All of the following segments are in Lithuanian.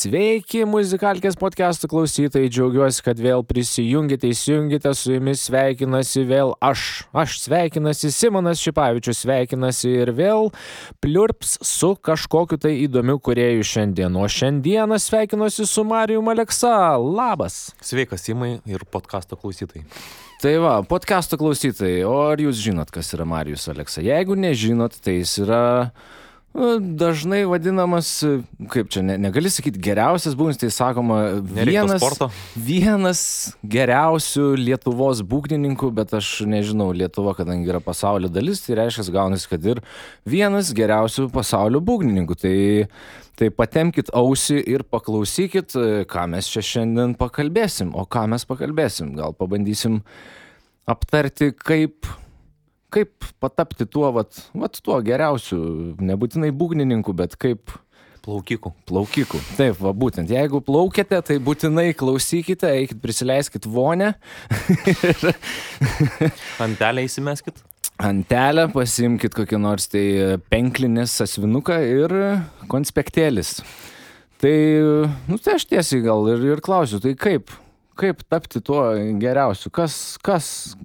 Sveiki, muzikalkės podcastų klausytojai, džiaugiuosi, kad vėl įsijungite, su jumis sveikinasi vėl aš sveikinasi, Simonas Šipavičius sveikinasi ir vėl pliurps su kažkokiu tai įdomiu kūrėju šiandien, o šiandieną sveikinuosi su Marijum Aleksa, labas. Sveikas, Simai ir podcasto klausytojai. Tai va, podcasto klausytojai, o ar jūs žinot, kas yra Marijus Aleksa? Jeigu nežinot, tai jis yra dažnai vadinamas, kaip čia, negali sakyti geriausias būgnis, tai sakoma vienas geriausių Lietuvos būgnininkų, bet aš nežinau, Lietuva, kadangi yra pasaulio dalis, tai reiškia, gaunasi, kad ir vienas geriausių pasaulio būgnininkų. Tai patemkit ausį ir paklausykit, ką mes čia šiandien pakalbėsim. O ką mes pakalbėsim? Gal pabandysim aptarti, kaip patapti tuo geriausiu, nebūtinai būgnininku, bet kaip Plaukiku. Taip, va būtent. Jeigu plaukiate, tai būtinai klausykite, eikit, prisileiskit vonę. Antelę įsimeskit. Antelę, pasiimkit kokį nors tai penklinės sąsiuvinuką ir konspektėlis. Tai aš tiesiai gal ir klausiu, tai kaip tapti tuo geriausiu?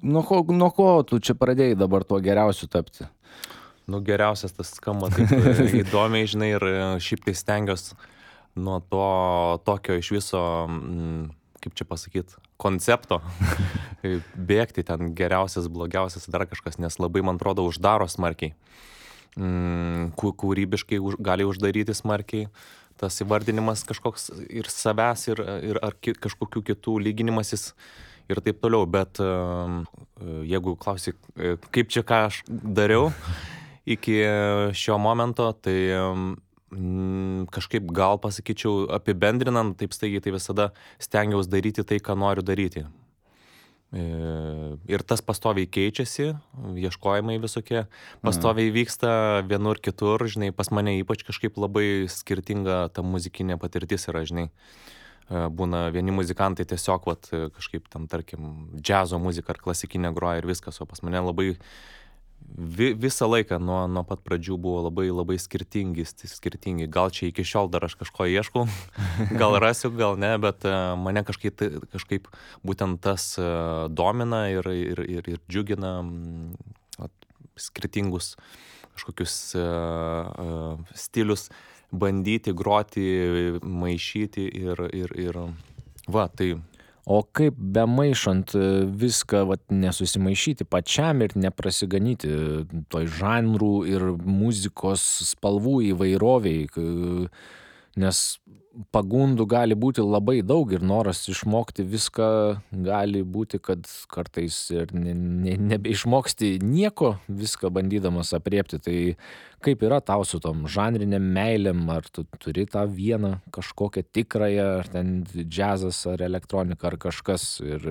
Nuo ko tu čia pradėjai dabar tuo geriausiu tapti? Geriausias tas skamba taip įdomiai, žinai, ir šiaip tai stengiuosi nuo to tokio iš viso, kaip čia pasakyti, koncepto bėgti ten geriausias, blogiausias, dar kažkas, nes labai, man atrodo, uždaro smarkiai. Kūrybiškai gali uždaryti smarkiai. Tas įvardinimas kažkoks ir savęs, ir ar kažkokių kitų lyginimasis ir taip toliau. Bet jeigu klausi, kaip čia ką aš dariau iki šio momento, tai kažkaip gal pasakyčiau apibendrinant, taip staigiai, tai visada stengiausi daryti tai, ką noriu daryti. Ir tas pastoviai keičiasi, ieškojimai visokie pastoviai vyksta vienur kitur, žinai, pas mane ypač kažkaip labai skirtinga ta muzikinė patirtis yra, žinai. Būna vieni muzikantai tiesiog kažkaip tam, tarkim, džiazo muzika ar klasikinė groja ir viskas, o pas mane labai visą laiką nuo pat pradžių buvo labai skirtingi. Gal čia iki šiol dar aš kažko ieškau, gal rasiu, gal ne, bet mane kažkaip būtent tas domina ir džiugina skirtingus kažkokius stilius bandyti, groti, maišyti ir tai. O kaip bemaišant viską nesusimaišyti pačiam ir neprasiganyti toj žanrų ir muzikos spalvų įvairoviai, nes pagundų gali būti labai daug ir noras išmokti viską gali būti, kad kartais ir nebeišmoksti nieko, viską bandydamas apriepti. Tai kaip yra tau su tom žanriniam meilėm, ar tu turi tą vieną kažkokią tikrąją, ar ten džiazas, ar elektronika, ar kažkas. Ir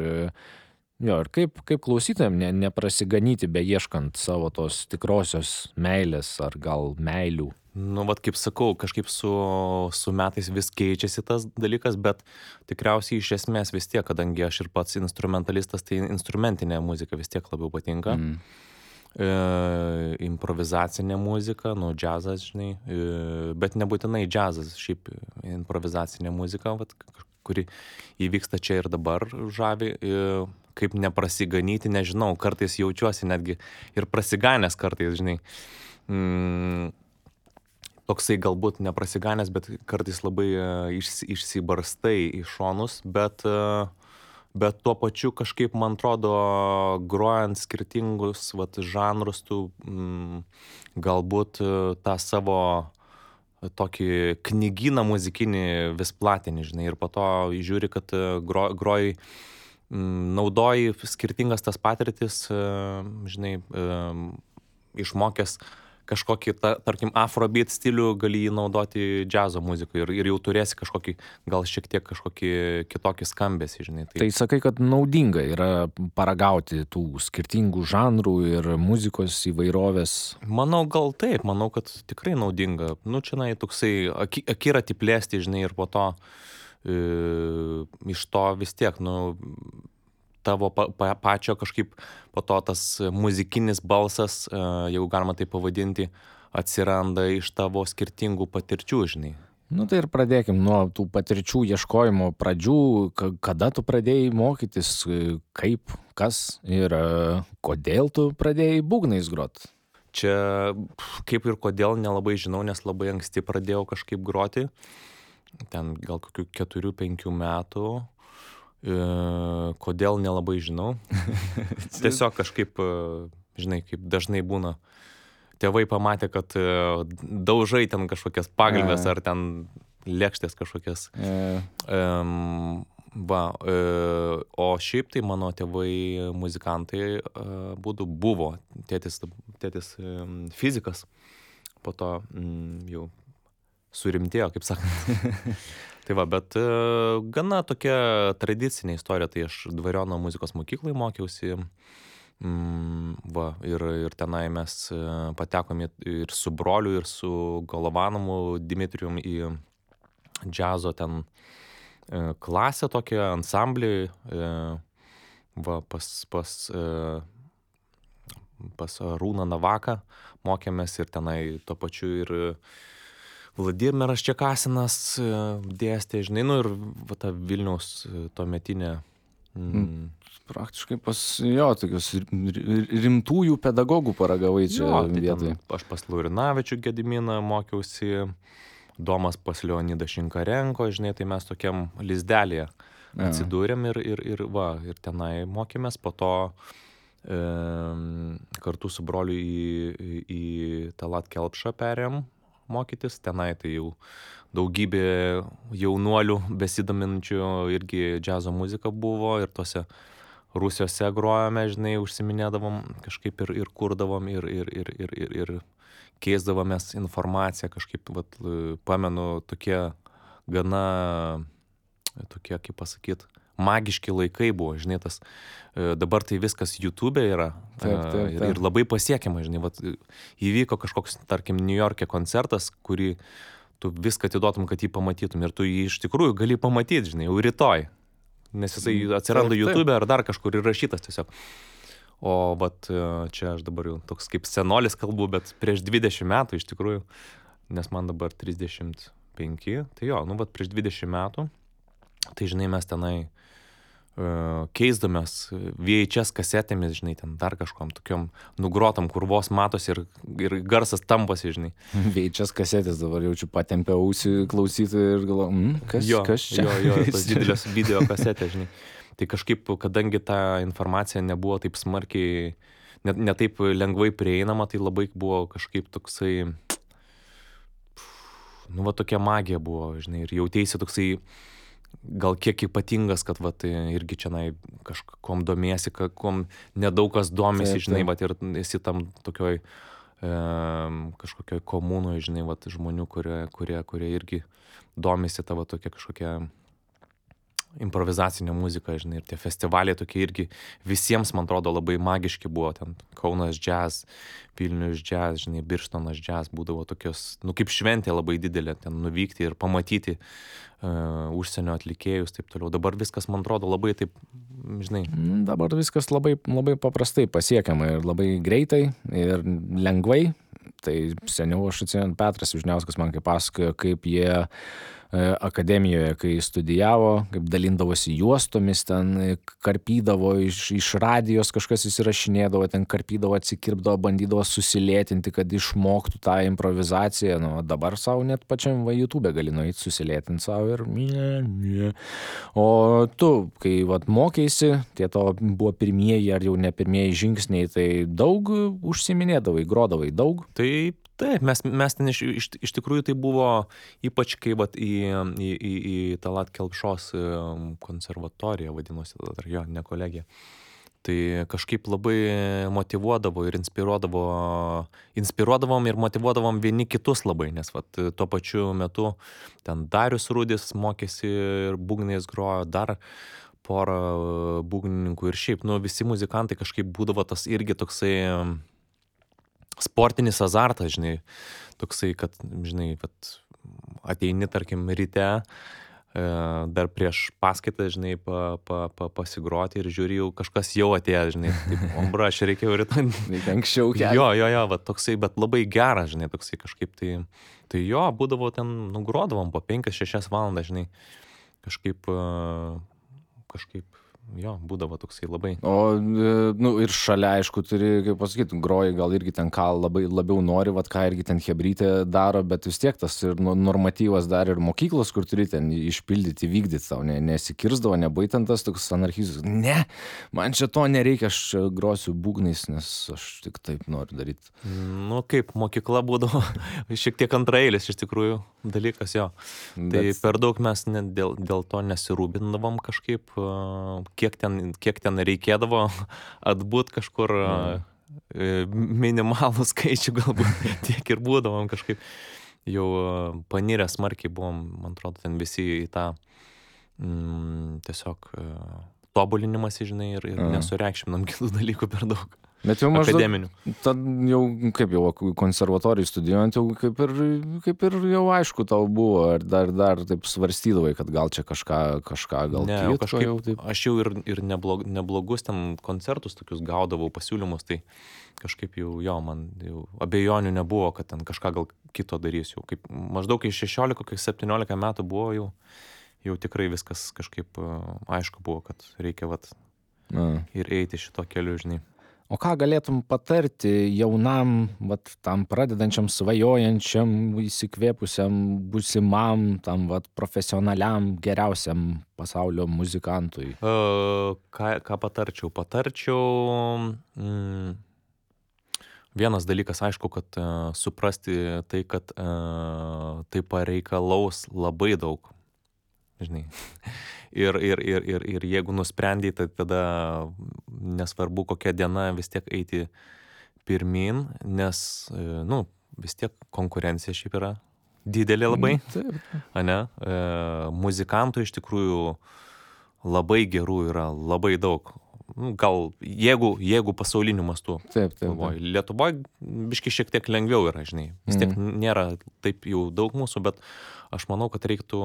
kaip klausytojam neprasiganyti beieškant savo tos tikrosios meilės, ar gal meilių. Kaip sakau, kažkaip su metais vis keičiasi tas dalykas, bet tikriausiai iš esmės vis tiek, kadangi aš ir pats instrumentalistas, tai instrumentinė muzika vis tiek labiau patinka. Improvizacinė muzika, džiazas, žinai, bet nebūtinai džiazas, šiaip improvizacinė muzika, kuri įvyksta čia ir dabar žavi. Kaip neprasiganyti, nežinau, kartais jaučiuosi netgi ir prasiganęs kartais, žinai. Toksai galbūt neprasiganęs, bet kartais labai išsibarstai į šonus, bet tuo pačiu kažkaip, man atrodo, grojant skirtingus žanrus, tu galbūt tą savo tokį knygyną muzikinį vis platini, žinai, ir po to žiūri, kad groji, naudoji skirtingas tas patirtis, žinai, išmokęs kažkokį, tarkim, afrobeat stilių gali jį naudoti džiazo muzikoje ir jau turėsi kažkokį, gal šiek tiek kažkokį kitokį skambesį, žinai. Tai sakai, kad naudinga yra paragauti tų skirtingų žanrų ir muzikos įvairovės. Manau, gal taip, manau, kad tikrai naudinga. Nu, čia toksai akiratį plėsti, žinai, ir po to iš to vis tiek, nu, tavo pačio kažkaip po to tas muzikinis balsas, jeigu galima tai pavadinti, atsiranda iš tavo skirtingų patirčių, žinai. Nu tai ir pradėkim nuo tų patirčių ieškojimo pradžių, kada tu pradėjai mokytis, kaip, kas ir kodėl tu pradėjai būgnais grot. Čia kaip ir kodėl nelabai žinau, nes labai anksti pradėjau kažkaip groti, ten gal kokių 4-5 metų. Kodėl nelabai žinau. Tiesiog kažkaip, žinai, kaip dažnai būna. Tėvai pamatė, kad daužai ten kažkokias pagalves ar ten lėkštės kažkokias. O šiaip tai mano tėvai muzikantai buvo. Tėtis fizikas, po to jau surimtėjo, kaip sakant. Tai va, bet gana tokia tradicinė istorija, tai aš Dvariono muzikos mokyklai mokiausi, ir tenai mes patekom ir su broliu, ir su Golovanovu Dimitrijum į džiazo ten klasę tokią, ansamblį, pas Arūną Navaką mokėmės ir tenai tuo pačiu ir Vladimiras Čekasinas dėstė, žinai, nu ir ta Vilniaus tuometinė. Praktiškai pas tokius rimtųjų pedagogų paragavai čia vietoj. Aš pas Laurinavičių Gediminą mokiausi, Domas pas Leonidą Šinkarenko, žinai, tai mes tokiam lizdelėje atsidūrėm ir tenai mokėmės, po to kartu su broliu į Talat Kelpšą perėjom mokytis, tenai tai jau daugybė jaunuolių besidominčių irgi džiazo muzika buvo ir tose rūsiuose grojome, žinai, užsiminėdavom kažkaip ir kurdavom ir keisdavomės informaciją kažkaip, vat, pamenu, tokie gana, tokie, kaip pasakyt, magiški laikai buvo, žinai, tas, dabar tai viskas YouTube yra. Taip. Ir labai pasiekiama, žinai, vat, įvyko kažkoks, tarkim, New York'e koncertas, kurį tu viską atiduotum, kad jį pamatytum ir tu jį iš tikrųjų gali pamatyti, žinai, jau rytoj, nes jisai atsiranda YouTube ar dar kažkur įrašytas tiesiog. O vat čia aš dabar jau toks kaip senolis kalbu, bet prieš 20 metų iš tikrųjų, nes man dabar 35, tai jo, nu vat prieš 20 metų, tai žinai, mes tenai keisdomės VHS kasetėmis, žinai, ten dar kažkom tokiom nugrotam, kur vos matosi ir garsas tampasi, žinai. VHS kasetės dabar jaučiu patempę ausį klausyti ir galvoju, kas čia? Jo, tos didelės video kasetės, žinai. Tai kažkaip, kadangi ta informacija nebuvo taip smarkiai, ne taip lengvai prieinama, tai labai buvo kažkaip toksai, nu va tokia magija buvo, žinai, ir jautėsi toksai gal kiek ypatingas, kad vat irgi čianai kažkom domiesi, kom nedaug kas domisi, žinai, vat ir esi tam tokioj kažkokioj komunoj, žinai, vat žmonių, kurie irgi domisi tavo tokia kažkokia improvizacinė muzika, žinai, ir tie festivaliai tokie irgi visiems, man atrodo, labai magiški buvo, ten Kaunas jazz, Vilnius jazz, žinai, Birštonas jazz, būdavo tokios, nu kaip šventė labai didelė, ten nuvykti ir pamatyti užsienio atlikėjus, taip toliau. Dabar viskas, man atrodo, labai taip, žinai. Dabar viskas labai, labai paprastai pasiekiama ir labai greitai ir lengvai. Tai seniau aš atsimenu, Petras Vyžniauskas man kaip pasakojo, kaip jie akademijoje, kai studijavo, kaip dalindavosi juostomis, ten karpydavo iš radijos, kažkas įsirašinėdavo, ten karpydavo, atsikirpdavo, bandydavo susilėtinti, kad išmoktų tą improvizaciją. Nu, dabar savo net pačiam YouTube gali nueiti susilėtinti savo ir O tu, kai vat mokėsi, tie to buvo pirmieji ar jau ne pirmieji žingsniai, tai daug užsiminėdavai, grodavai daug? Taip, mes ten iš tikrųjų tai buvo, ypač kai vat į Talat Kelpšos konservatoriją vadinosi, jo, ne kolegija. Tai kažkaip labai motyvuodavo ir inspiruodavom ir motyvuodavom vieni kitus labai, nes vat tuo pačiu metu ten Darius Rudis mokėsi ir būgnais grojo, dar porą būgnininkų ir šiaip, nu, visi muzikantai kažkaip būdavo tas irgi toksai sportinis azartas, žinai, toksai, kad, žinai, vat ateini, tarkim, ryte, dar prieš paskaitą, žinai, pasigroti ir žiūri, jau kažkas jau atėjo, žinai, taip, ombra, aš reikėjo rytoj. Reikia anksčiau kelti. Jo, va, toksai, bet labai geras, žinai, toksai kažkaip, tai jo, būdavo ten, nugrodavom po 5-6 valandas, žinai, kažkaip, jo, būdavo toksai labai. O, nu, ir šalia, aišku, turi, kaip pasakyti, groji, gal irgi ten ką labiau nori, vat ką irgi ten chebrytė daro, bet vis tiek tas ir normatyvas dar ir mokyklos, kur turi ten išpildyti, vykdyti tau, nesikirzdavo, nebaitant tas toks anarchizmas. Ne, man čia to nereikia, aš čia grosiu būgnais, nes aš tik taip noriu daryti. Nu, kaip mokykla būdavo šiek tiek antraeilis iš tikrųjų dalykas, jo. Tai per daug mes dėl to nesirūpindavom kažkaip, kiek ten reikėdavo atbūt kažkur minimalų skaičių galbūt, tiek ir būdavom kažkaip. Jau panirę smarkiai buvom, man atrodo, ten visi į tą tiesiog tobulinimas, žinai, ir nesureikšminam kitų dalykų per daug. Bet jau maždaug, akademinių. Tad jau, kaip jau konservatorijai studijuojant, jau kaip ir jau aišku tau buvo, ar dar taip svarstydavai, kad gal čia kažką gal ne, kitko kažkaip, jau taip. aš jau ir neblogus ten koncertus tokius gaudavau, pasiūlymus, tai kažkaip jau, jo, man jau abejonių nebuvo, kad ten kažką gal kito darysiu. Kaip maždaug iš 16-17 metų buvo jau tikrai viskas kažkaip aišku buvo, kad reikia vat ir eiti šito keliu, žinai. O ką galėtum patarti jaunam, vat, tam pradedančiam, svajojančiam, įsikvėpusiam, būsimam, tam vat, profesionaliam, geriausiam pasaulio muzikantui? Ką patarčiau? Vienas dalykas, aišku, kad suprasti tai, kad tai pareikalaus labai daug, žinai. Ir jeigu nusprendai, tai tada nesvarbu kokia diena vis tiek eiti pirmin, nes, nu, vis tiek konkurencija šiaip yra didelė labai, ane? Muzikantų iš tikrųjų labai gerų yra, labai daug. Nu, gal jeigu pasauliniu mastu. Taip. Lietuvoje biški šiek tiek lengviau yra, žinai. Vis tiek nėra taip jau daug mūsų, bet aš manau, kad reiktų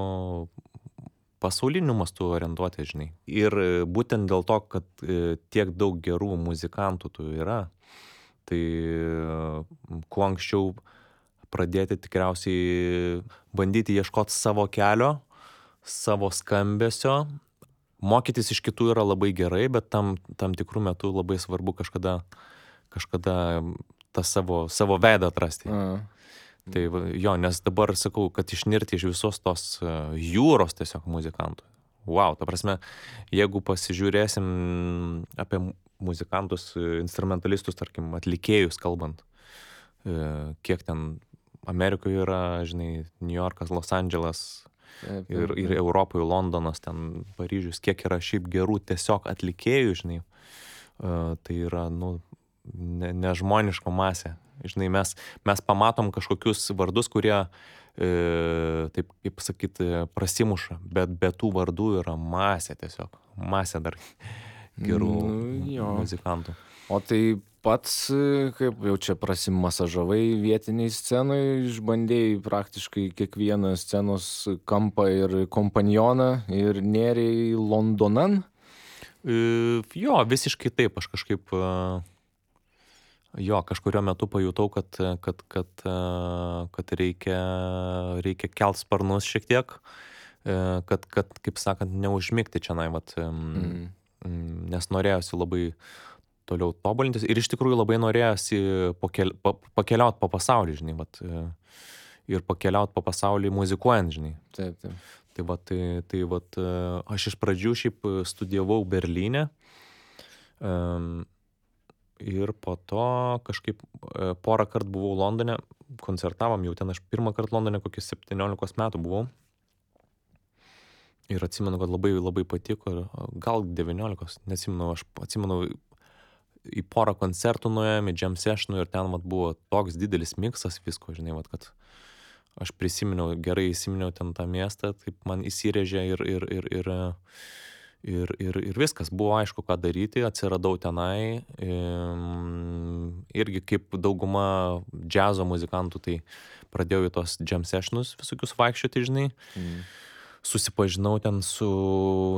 pasauliniu mastu orientuoti, žinai. Ir būtent dėl to, kad tiek daug gerų muzikantų tų yra, tai kuo anksčiau pradėti tikriausiai bandyti ieškoti savo kelio, savo skambesio. Mokytis iš kitų yra labai gerai, bet tam tikrų metų labai svarbu kažkada tą savo veidą atrasti. Tai jo, nes dabar sakau, kad išnirti iš visos tos jūros tiesiog muzikantų. Wow, ta prasme, jeigu pasižiūrėsim apie muzikantus, instrumentalistus, tarkim, atlikėjus kalbant, kiek ten Amerikoje yra, žinai, New Yorkas, Los Andželas ir Europoje, Londonas, ten Paryžius, kiek yra šiaip gerų tiesiog atlikėjų, žinai, tai yra, nu, nežmoniška masė. Žinai, mes pamatom kažkokius vardus, kurie, taip kaip sakyti, prasimuša, bet be tų vardų yra masė tiesiog. Masė dar gerų muzikantų. O tai pats, kaip jau čia prasimasažavai vietiniai scenai, išbandėjai praktiškai kiekvieną scenos kampą ir kompanioną ir nėrei Londonan? Jo, visiškai taip, aš kažkaip... Jo, kažkurio metu pajutau, kad reikia kelt sparnus šiek tiek, kad kaip sakant, neužmigti čia, vat, nes norėjosi labai toliau tobulintis ir iš tikrųjų labai norėjosi pakeliauti po pasaulį, žinai, vat, ir pakeliauti po pasaulį muzikuojant, žinai. Taip. Tai vat, aš iš pradžių šiaip studijavau Berlyne, ir po to kažkaip porą kartų buvau Londone, koncertavom jau ten, aš pirmą kartą Londone kokius 17 metų buvau. Ir atsimenu, kad labai labai patiko, gal 19, neatsimenu, aš atsimenu, į porą koncertų nuėjom, į jam sessionų ir ten vat buvo toks didelis miksas visko, žinai, vat, kad aš prisiminiau, gerai įsiminiau ten tą miestą, taip man įsirėžė ir viskas, buvo aišku, ką daryti, atsiradau tenai, irgi kaip dauguma džiazo muzikantų, tai pradėjau į tos jam sessionus visokius vaikščioti, žinai. Susipažinau ten su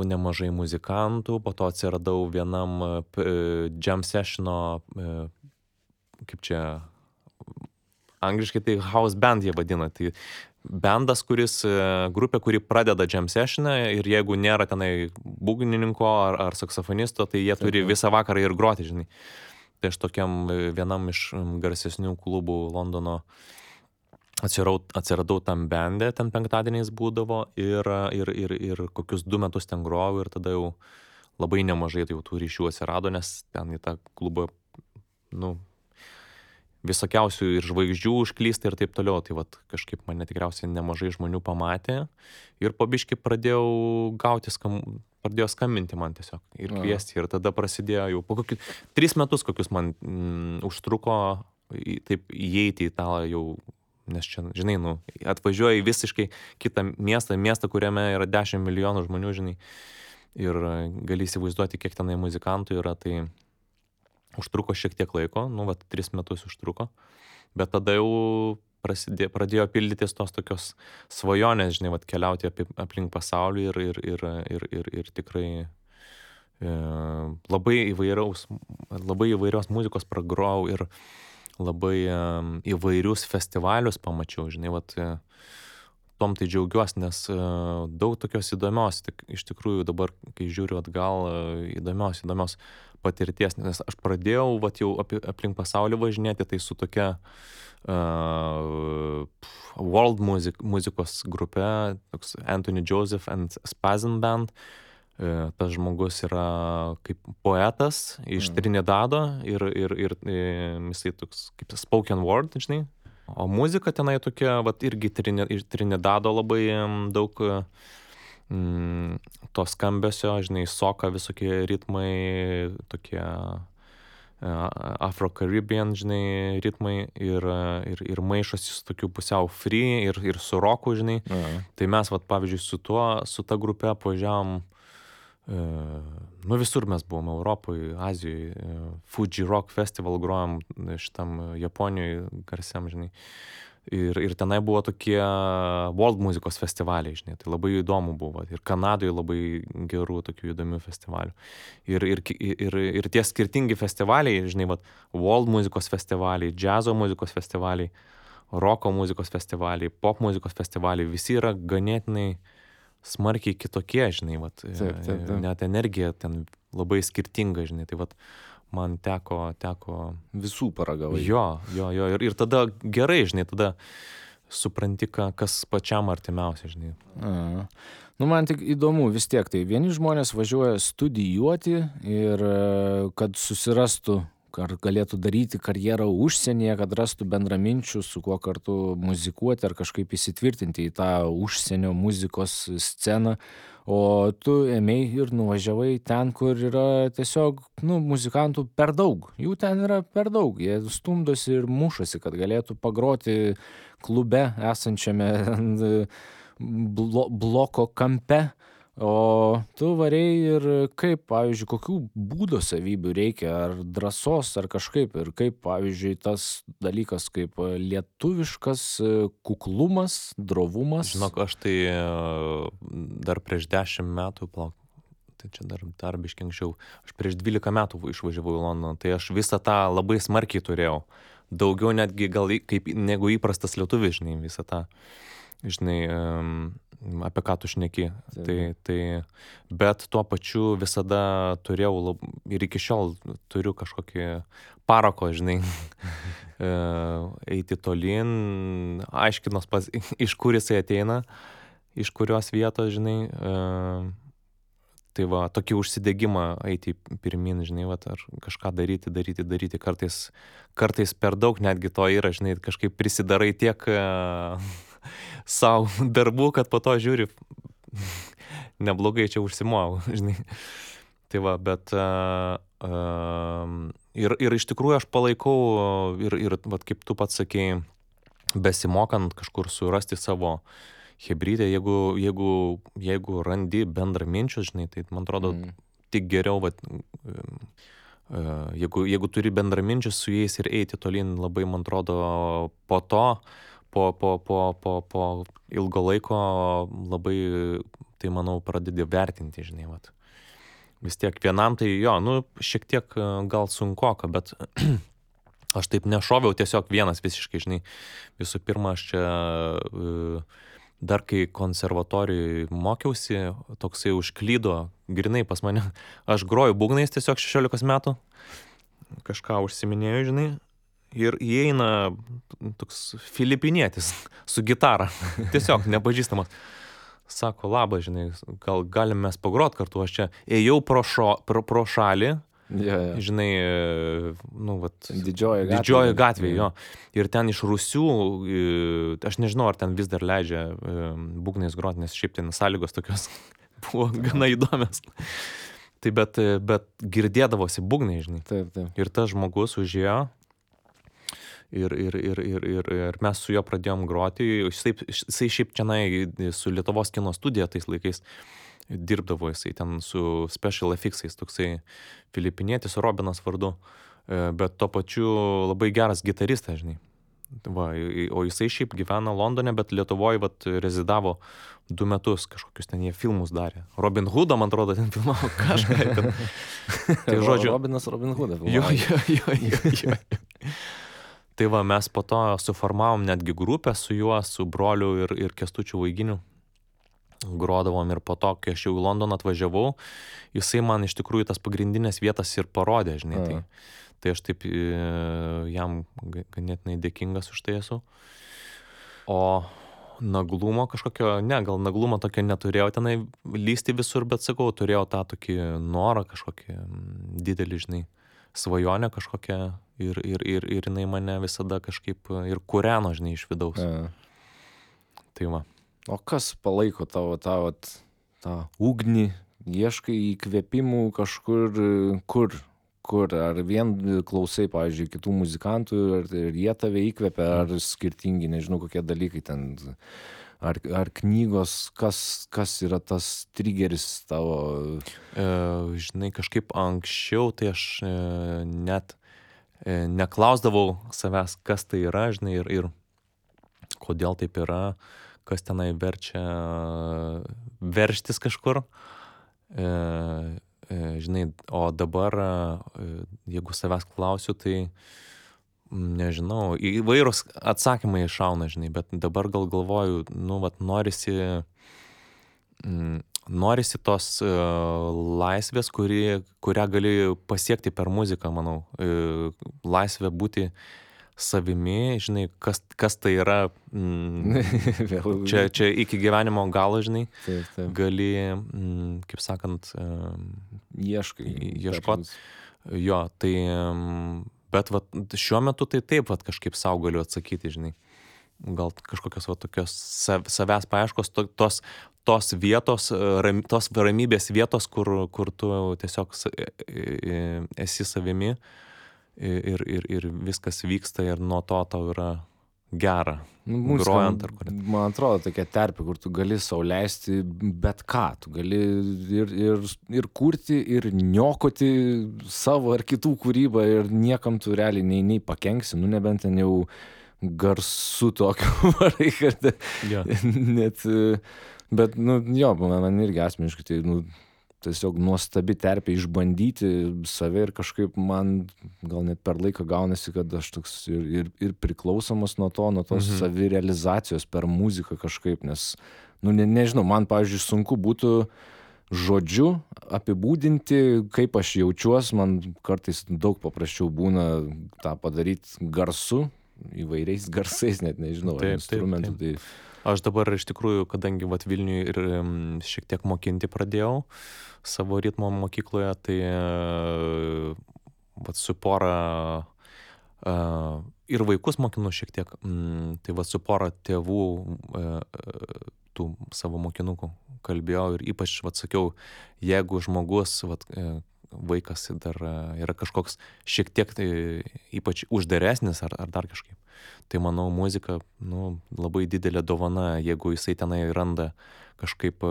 nemažai muzikantų, po to atsiradau vienam jam sessiono, kaip čia, angliškai tai house band jie vadina, tai bendas, grupė, kuri pradeda jam sessioną ir jeigu nėra tenai būgnininko ar saksofonisto, tai jie turi visą vakarą ir groti, žinai. Tai aš tokiam vienam iš garsesnių klubų Londono atsiradau tam bende, ten penktadieniais būdavo ir kokius 2 metus ten grojau ir tada jau labai nemažai jau tų ryšių atsirado, nes ten į tą klubą, visokiausių ir žvaigždžių užklysta ir taip toliau, tai vat kažkaip mane tikriausiai nemažai žmonių pamatė ir po biškį pradėjo skambinti man tiesiog ir kviesti ir tada prasidėjo jau po kokius 3 metus kokius man užtruko taip įeiti į tą jau, nes čia, žinai, atvažiuoji visiškai kitą miestą, kuriame yra 10 milijonų žmonių, žinai, ir gali įsivaizduoti, kiek tenai muzikantų yra, tai užtruko šiek tiek laiko, 3 metus užtruko, bet tada jau pradėjo pildytis tos tokios svajonės, žinai, keliauti aplink pasaulį ir tikrai labai įvairios muzikos pragrojau ir labai įvairius festivalius pamačiau, žinai, tom tai džiaugiuosi, nes daug tokios įdomios, iš tikrųjų dabar, kai žiūriu atgal, įdomios patirties, nes aš pradėjau jau aplink pasaulį važinėti, tai su tokia world muzikos grupe, toks Anthony Joseph and Spazin Band. Tas žmogus yra kaip poetas iš Trinidado ir jisai toks kaip spoken word, žinai. O muzika tenai tokia, irgi iš Trinidado labai daug to skambesio, žinai, soka visokie ritmai, tokie Afro-Caribbean, žinai, ritmai ir maišosi su tokiu pusiau free ir su roku, žinai. Tai mes, pavyzdžiui, su ta grupe važiavom, visur mes buvom, Europoje, Azijoje, Fuji Rock Festival grojom šitam Japonijoje garsiam, žinai. Ir tenai buvo tokie world muzikos festivaliai, žinai, tai labai įdomu buvo. Ir Kanadoje labai gerų tokių įdomių festivalių. Ir tie skirtingi festivaliai, žinai, world muzikos festivaliai, džiazo muzikos festivaliai, roko muzikos festivaliai, pop muzikos festivaliai, visi yra ganėtinai smarkiai kitokie, žinai, net energija ten labai skirtinga, žinai, tai man teko visų paragavai. Jo, ir tada gerai, žinai, tada supranti, kas pačiam artimiausia, žinai. Man tik įdomu vis tiek, tai vieni žmonės važiuoja studijuoti ir kad susirastų, ar galėtų daryti karjerą užsienyje, kad rastų bendraminčių, su kuo kartu muzikuoti ar kažkaip įsitvirtinti į tą užsienio muzikos sceną. O tu ėmei ir nuvažiavai ten, kur yra tiesiog, muzikantų per daug. Jų ten yra per daug. Jie stumdosi ir mušasi, kad galėtų pagroti klube esančiame bloko kampe. O tu varei ir kaip, pavyzdžiui, kokių būdo savybių reikia, ar drąsos, ar kažkaip, ir kaip, pavyzdžiui, tas dalykas kaip lietuviškas kuklumas, drovumas. Žinok, aš tai dar prieš 10 metų, tai čia dar biškį anksčiau, aš prieš 12 metų išvažiavau į Londoną, tai aš visą tą labai smarkiai turėjau. Daugiau netgi gal negu įprastas lietuvis, žinai, visą tą. Žinai, apie ką tu šneki. Tai, bet tuo pačiu visada turėjau ir iki šiol turiu kažkokį parako, žinai, eiti tolyn, aiškinos iš kur jisai ateina, iš kurios vietos, žinai, tai tokį užsidegimą eiti pirmin, žinai, ar kažką daryti, kartais per daug netgi to yra, žinai, kažkaip prisidarai tiek savo darbų, kad po to žiūri, neblogai čia užsimojau, žinai. Tai va, bet ir iš tikrųjų aš palaikau ir vat, kaip tu pats sakei, besimokant kažkur surasti savo hebrydę, jeigu randi bendraminčius, žinai, tai man atrodo tik geriau, vat, jeigu turi bendraminčius su jais ir eiti tolyn, labai, man atrodo, po to, po ilgo laiko labai, tai manau, pradedi vertinti, žinai, vat. Vis tiek vienam tai jo, nu, šiek tiek gal sunkoka, bet aš taip nešoviau tiesiog vienas visiškai, žinai. Visų pirma, aš čia dar kai konservatorijoje mokiausi, toksai užklydo, grinai pas mane, aš groju būgnais tiesiog 16 metų, kažką užsiminėjau, žinai, ir įeina toks filipinietis su gitara, tiesiog nepažįstamas. Sako, labas, žinai, gal galim mes pagrot kartu, aš čia ėjau pro šalį, žinai, nu, vat, didžioji gatvė, jo. Ir ten iš Rusių, aš nežinau, ar ten vis dar leidžia būgnais grot, nes šiaip ten sąlygos tokios buvo gana įdomios. Tai bet girdėdavosi būgnai, žinai. Taip. Ir tas žmogus užėjo. Ir mes su juo pradėjom groti. Jisai šiaip čianai su Lietuvos kino studija tais laikais dirbdavo, jisai ten su Special Effects'ais, toksai filipinietis Robinas vardu, bet tuo pačiu labai geras gitaristas, žinai. Va, o jisai šiaip gyvena Londone, bet Lietuvoje vat rezidavo 2 metus, kažkokius ten jie filmus darė. Robin Hoodą, man atrodo, ten filmavo kažką. Tai žodžiu, Robinas Robin Hoodą filmavo. Jo. Tai va, mes po to suformavom netgi grupę su juo, su broliu ir Kęstučiu Vaiginiu. Grodavom ir po to, kai aš jau į Londoną atvažiavau, jisai man iš tikrųjų tas pagrindinės vietas ir parodė, žinai. Tai aš taip jam ganėtinai dėkingas už tai esu. O naglumo kažkokio, gal naglumo tokio neturėjau tenai lysti visur, bet sakau, turėjau tą tokį norą kažkokį didelį, žinai, svajonę kažkokią ir jinai mane visada kažkaip ir kūreno, žinai, iš vidaus. Tai va. O kas palaiko tavo tą ugnį, ieškai įkvėpimų kažkur, kur? Ar vien klausai, pavyzdžiui, kitų muzikantų ir jie tave įkvėpia, ar skirtingi, nežinau, kokie dalykai ten, ar knygos, kas yra tas trigeris tavo? Žinai, kažkaip anksčiau, tai aš net neklausdavau savęs, kas tai yra, žinai, ir kodėl taip yra, kas tenai verčia verštis kažkur. Žinai, o dabar, jeigu savęs klausiu, tai nežinau, įvairūs atsakymai iššauna, žinai, bet dabar gal galvoju, nu, vat, norisi tos laisvės, kurią gali pasiekti per muziką, manau. Laisvė būti savimi, žinai, kas tai yra, čia iki gyvenimo galo, žinai, Taip. gali, kaip sakant, ieškot. Jo, tai, bet vat, šiuo metu tai taip, vat, kažkaip sau galiu atsakyti, žinai. Gal kažkokios vat, tokios savęs paieškos, tos vietos, tos ramybės vietos, kur tu tiesiog esi savimi. Ir viskas vyksta ir nuo to tau yra gera. Grojant ar kur. Man atrodo, tokia terpė, kur tu gali sau leisti bet ką. Tu gali ir kurti, ir niokoti savo ar kitų kūrybą ir niekam tu realiai nei pakenksi, nu nebent ten jau garsu tokiu varai, kad net, bet, nu, jo, man irgi asmeniškai, tai, nu, tiesiog nuostabi terpė išbandyti save ir kažkaip man gal net per laiką gaunasi, kad aš toks ir priklausomas nuo tos savirealizacijos per muziką kažkaip, nes, nu, nežinau, man, pavyzdžiui, sunku būtų žodžiu apibūdinti, kaip aš jaučiuos, man kartais daug paprasčiau būna tą padaryti garsu, įvairiais garsais, net nežinau, instrumentų. Taip. Aš dabar iš tikrųjų, kadangi vat Vilniuje ir šiek tiek mokinti pradėjau savo ritmo mokykloje, tai vat su pora ir vaikus mokinu šiek tiek, tai vat su pora tėvų tų savo mokinukų kalbėjau ir ypač, vat, sakiau, jeigu žmogus, vat, vaikas dar yra kažkoks šiek tiek tai ypač uždaresnis ar dar kažkaip, tai manau muzika, nu, labai didelė dovana, jeigu jisai tenai randa kažkaip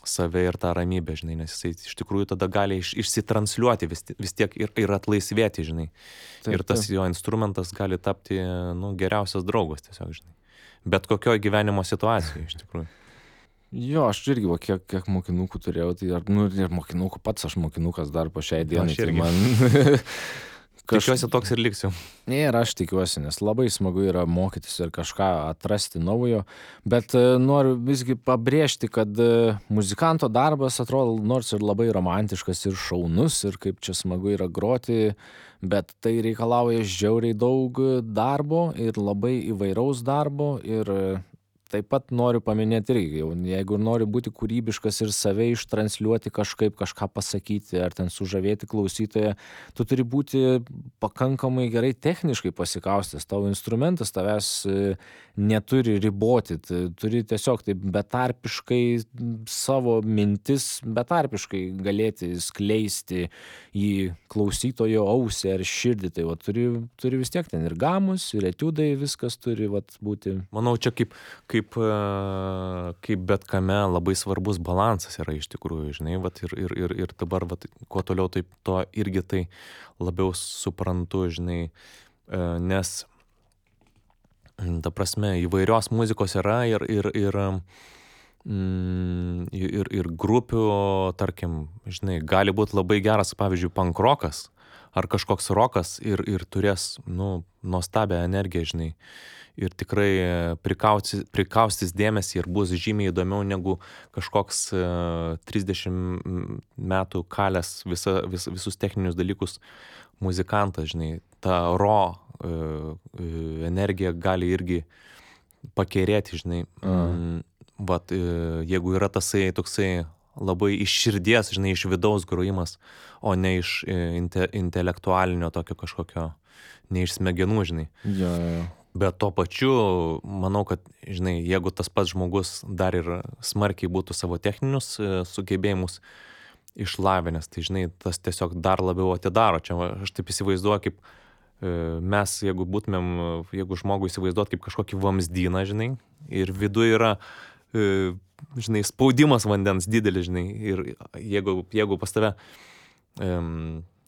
save ir tą ramybę, žinai, nes jisai iš tikrųjų tada gali išsitransliuoti vis tiek ir atlaisvėti, žinai. Taip, Ir tas jo instrumentas gali tapti, nu, geriausias draugas tiesiog, žinai. Bet kokioj gyvenimo situacijoje, iš tikrųjų. Jo, aš irgi, va, kiek mokinukų turėjau, tai ir mokinukų pats, aš mokinukas dar po šiai dienai, Aš tai irgi. man... Tikiuosi toks ir liksiu. Ir aš tikiuosi, nes labai smagu yra mokytis ir kažką atrasti naujo, bet noriu visgi pabrėžti, kad muzikanto darbas atrodo nors ir labai romantiškas ir šaunus ir kaip čia smagu yra groti, bet tai reikalauja žiauriai daug darbo ir labai įvairaus darbo ir taip pat noriu paminėti irgi, jeigu nori būti kūrybiškas ir save ištransliuoti kažkaip, kažką pasakyti ar ten sužavėti klausytoją, tu turi būti pakankamai gerai techniškai pasikaustęs, tavo instrumentas tavęs neturi riboti, turi tiesiog taip betarpiškai savo mintis, betarpiškai galėti skleisti į klausytojo ausį ar širdį, tai va, turi vis tiek ten ir gamus, ir etiudai, viskas turi va, būti. Manau, čia kaip bet kame labai svarbus balansas yra iš tikrųjų, žinai, vat, ir dabar, vat, kuo toliau, taip to irgi tai labiau suprantu, žinai, nes, ta prasme, įvairios muzikos yra ir grupių, tarkim, žinai, gali būti labai geras, pavyzdžiui, punk rokas ar kažkoks rokas ir turės, nu, nuostabią energiją, žinai. Ir tikrai prikaustys dėmesį ir bus žymiai įdomiau negu kažkoks 30 metų kalęs visus techninius dalykus muzikantas, žinai. Ta energija gali irgi pakerėti, žinai. Vat, jeigu yra tasai toksai labai iš širdies, žinai, iš vidaus grojimas, o ne iš intelektualinio tokio kažkokio, ne iš smegenų, žinai. Jo. Bet tuo pačiu, manau, kad, žinai, jeigu tas pats žmogus dar ir smarkiai būtų savo techninius sugebėjimus išlavinęs, tai, žinai, tas tiesiog dar labiau atidaro. Čia aš taip įsivaizduoju, kaip mes, jeigu žmogų įsivaizduot kaip kažkokį vamzdyną, žinai, ir viduje yra, žinai, spaudimas vandens didelis, žinai, ir jeigu pas tave...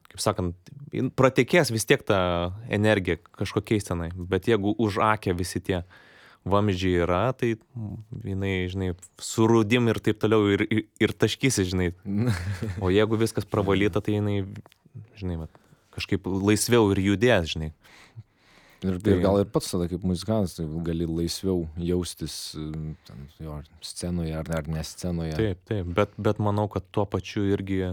kaip sakant, pratekės vis tiek ta energija kažkokiais tenai, bet jeigu už akę visi tie vamzdžiai yra, tai jinai, žinai, surūdim ir taip toliau ir taškysi, žinai. O jeigu viskas pravalyta, tai jinai, žinai, kažkaip laisviau ir judės, žinai. Ir gal ir pats tada kaip muzikantas tai gali laisviau jaustis ten, jo, scenoje ar ne scenoje. Taip, bet manau, kad tuo pačiu irgi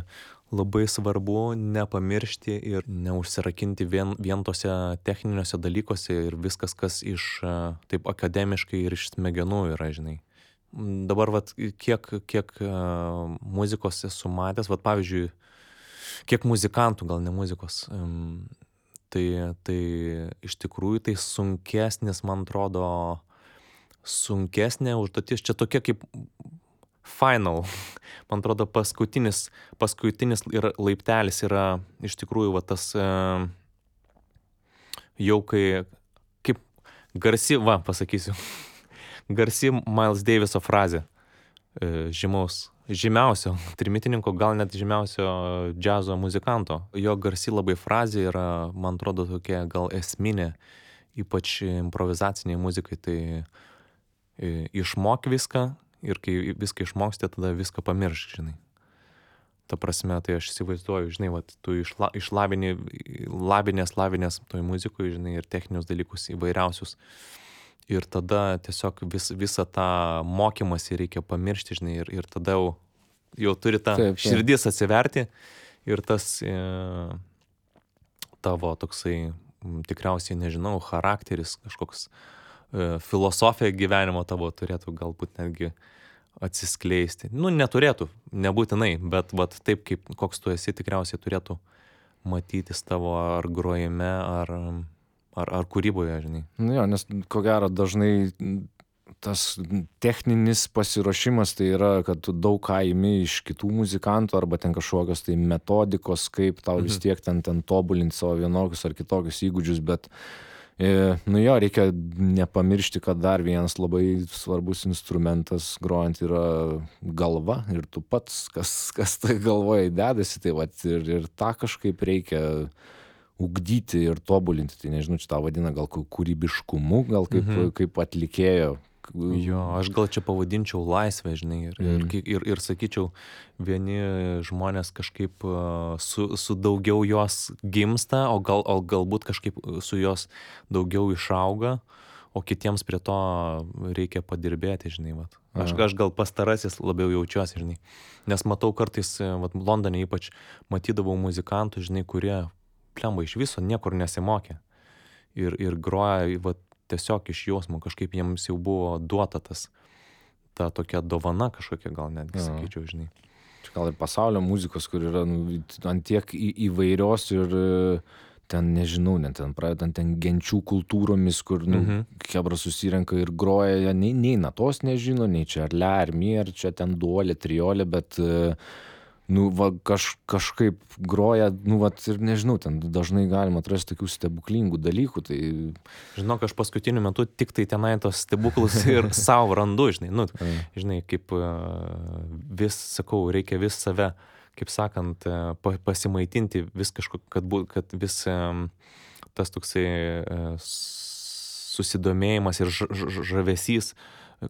labai svarbu nepamiršti ir neužsirakinti vien tose techniniuose dalykuose ir viskas, kas iš taip akademiškai ir iš smegenų yra, žinai. Dabar, vat, kiek muzikos esu matęs, vat, pavyzdžiui, kiek muzikantų, gal ne muzikos, tai iš tikrųjų tai sunkesnis, man atrodo, sunkesnė užduotis, čia tokia kaip final, man atrodo, paskutinis ir laiptelis yra iš tikrųjų va tas jau kaip garsi, pasakysiu, garsi Miles Daviso frazė, žymiausio trimitininko, gal net žymiausio džiazo muzikanto. Jo garsi labai frazė yra, man atrodo, tokia gal esminė, ypač improvizaciniai muzikai, tai išmok viską, ir kai viską išmoksti, tada viską pamiršk, žinai. Ta prasme, tai aš įsivaizduoju, žinai, vat, tu lavinės toj muzikui, žinai, ir techninius dalykus įvairiausius. Ir tada tiesiog visą tą mokymąsi reikia pamiršti, žinai, ir tada jau turi tą širdis atsiverti ir tas tavo toksai, tikriausiai, nežinau, charakteris, kažkoks filosofija gyvenimo tavo turėtų galbūt netgi atsiskleisti. Nu, neturėtų, nebūtinai, bet taip, kaip koks tu esi, tikriausiai turėtų matytis tavo ar grojime, ar kūryboje, žinai. Nu jo, nes ko gero dažnai tas techninis pasiruošimas tai yra, kad tu daug ką imi iš kitų muzikantų arba ten kažkokios tai metodikos, kaip tau vis tiek ten tobulinti savo vienokius ar kitokius įgūdžius, bet nu jo, reikia nepamiršti, kad dar vienas labai svarbus instrumentas grojant yra galva ir tu pats, kas tai galvoje dedasi, tai vat ir tą kažkaip reikia ugdyti ir tobulinti, tai nežinau, čia tą vadina gal kūrybiškumu, gal kaip atlikėjo. Jo, aš gal čia pavadinčiau laisvę, žinai, ir sakyčiau, vieni žmonės kažkaip su daugiau jos gimsta, o galbūt kažkaip su jos daugiau išauga, o kitiems prie to reikia padirbėti, žinai, vat. Aš gal pastarasis labiau jaučiuosi, žinai, nes matau kartais, vat, Londone ypač matydavau muzikantų, žinai, kurie plemba iš viso niekur nesimokė ir groja, vat, tiesiog iš jausmo, kažkaip jiems jau buvo duota ta tokia dovana kažkokia, gal netgi sakyčiau, žinai. Čia gal ir pasaulio muzikos, kur yra ant tiek įvairios ir ten, nežinau, net ten pradedant ten genčių kultūromis, kur kebra susirenka ir groja, nei natos nežino, nei čia ar le, ar mi, ar čia ten duolė, triolė, bet va, kažkaip groja, vat, ir nežinau, ten dažnai galima atrasti tokių stebuklingų dalykų, tai... Žinok, aš paskutiniu metu tik tai tenai tos stebuklus ir savo randu, žinai, žinai, kaip vis, sakau, reikia vis save, kaip sakant, pasimaitinti vis kad vis tas toksai susidomėjimas ir žavesys,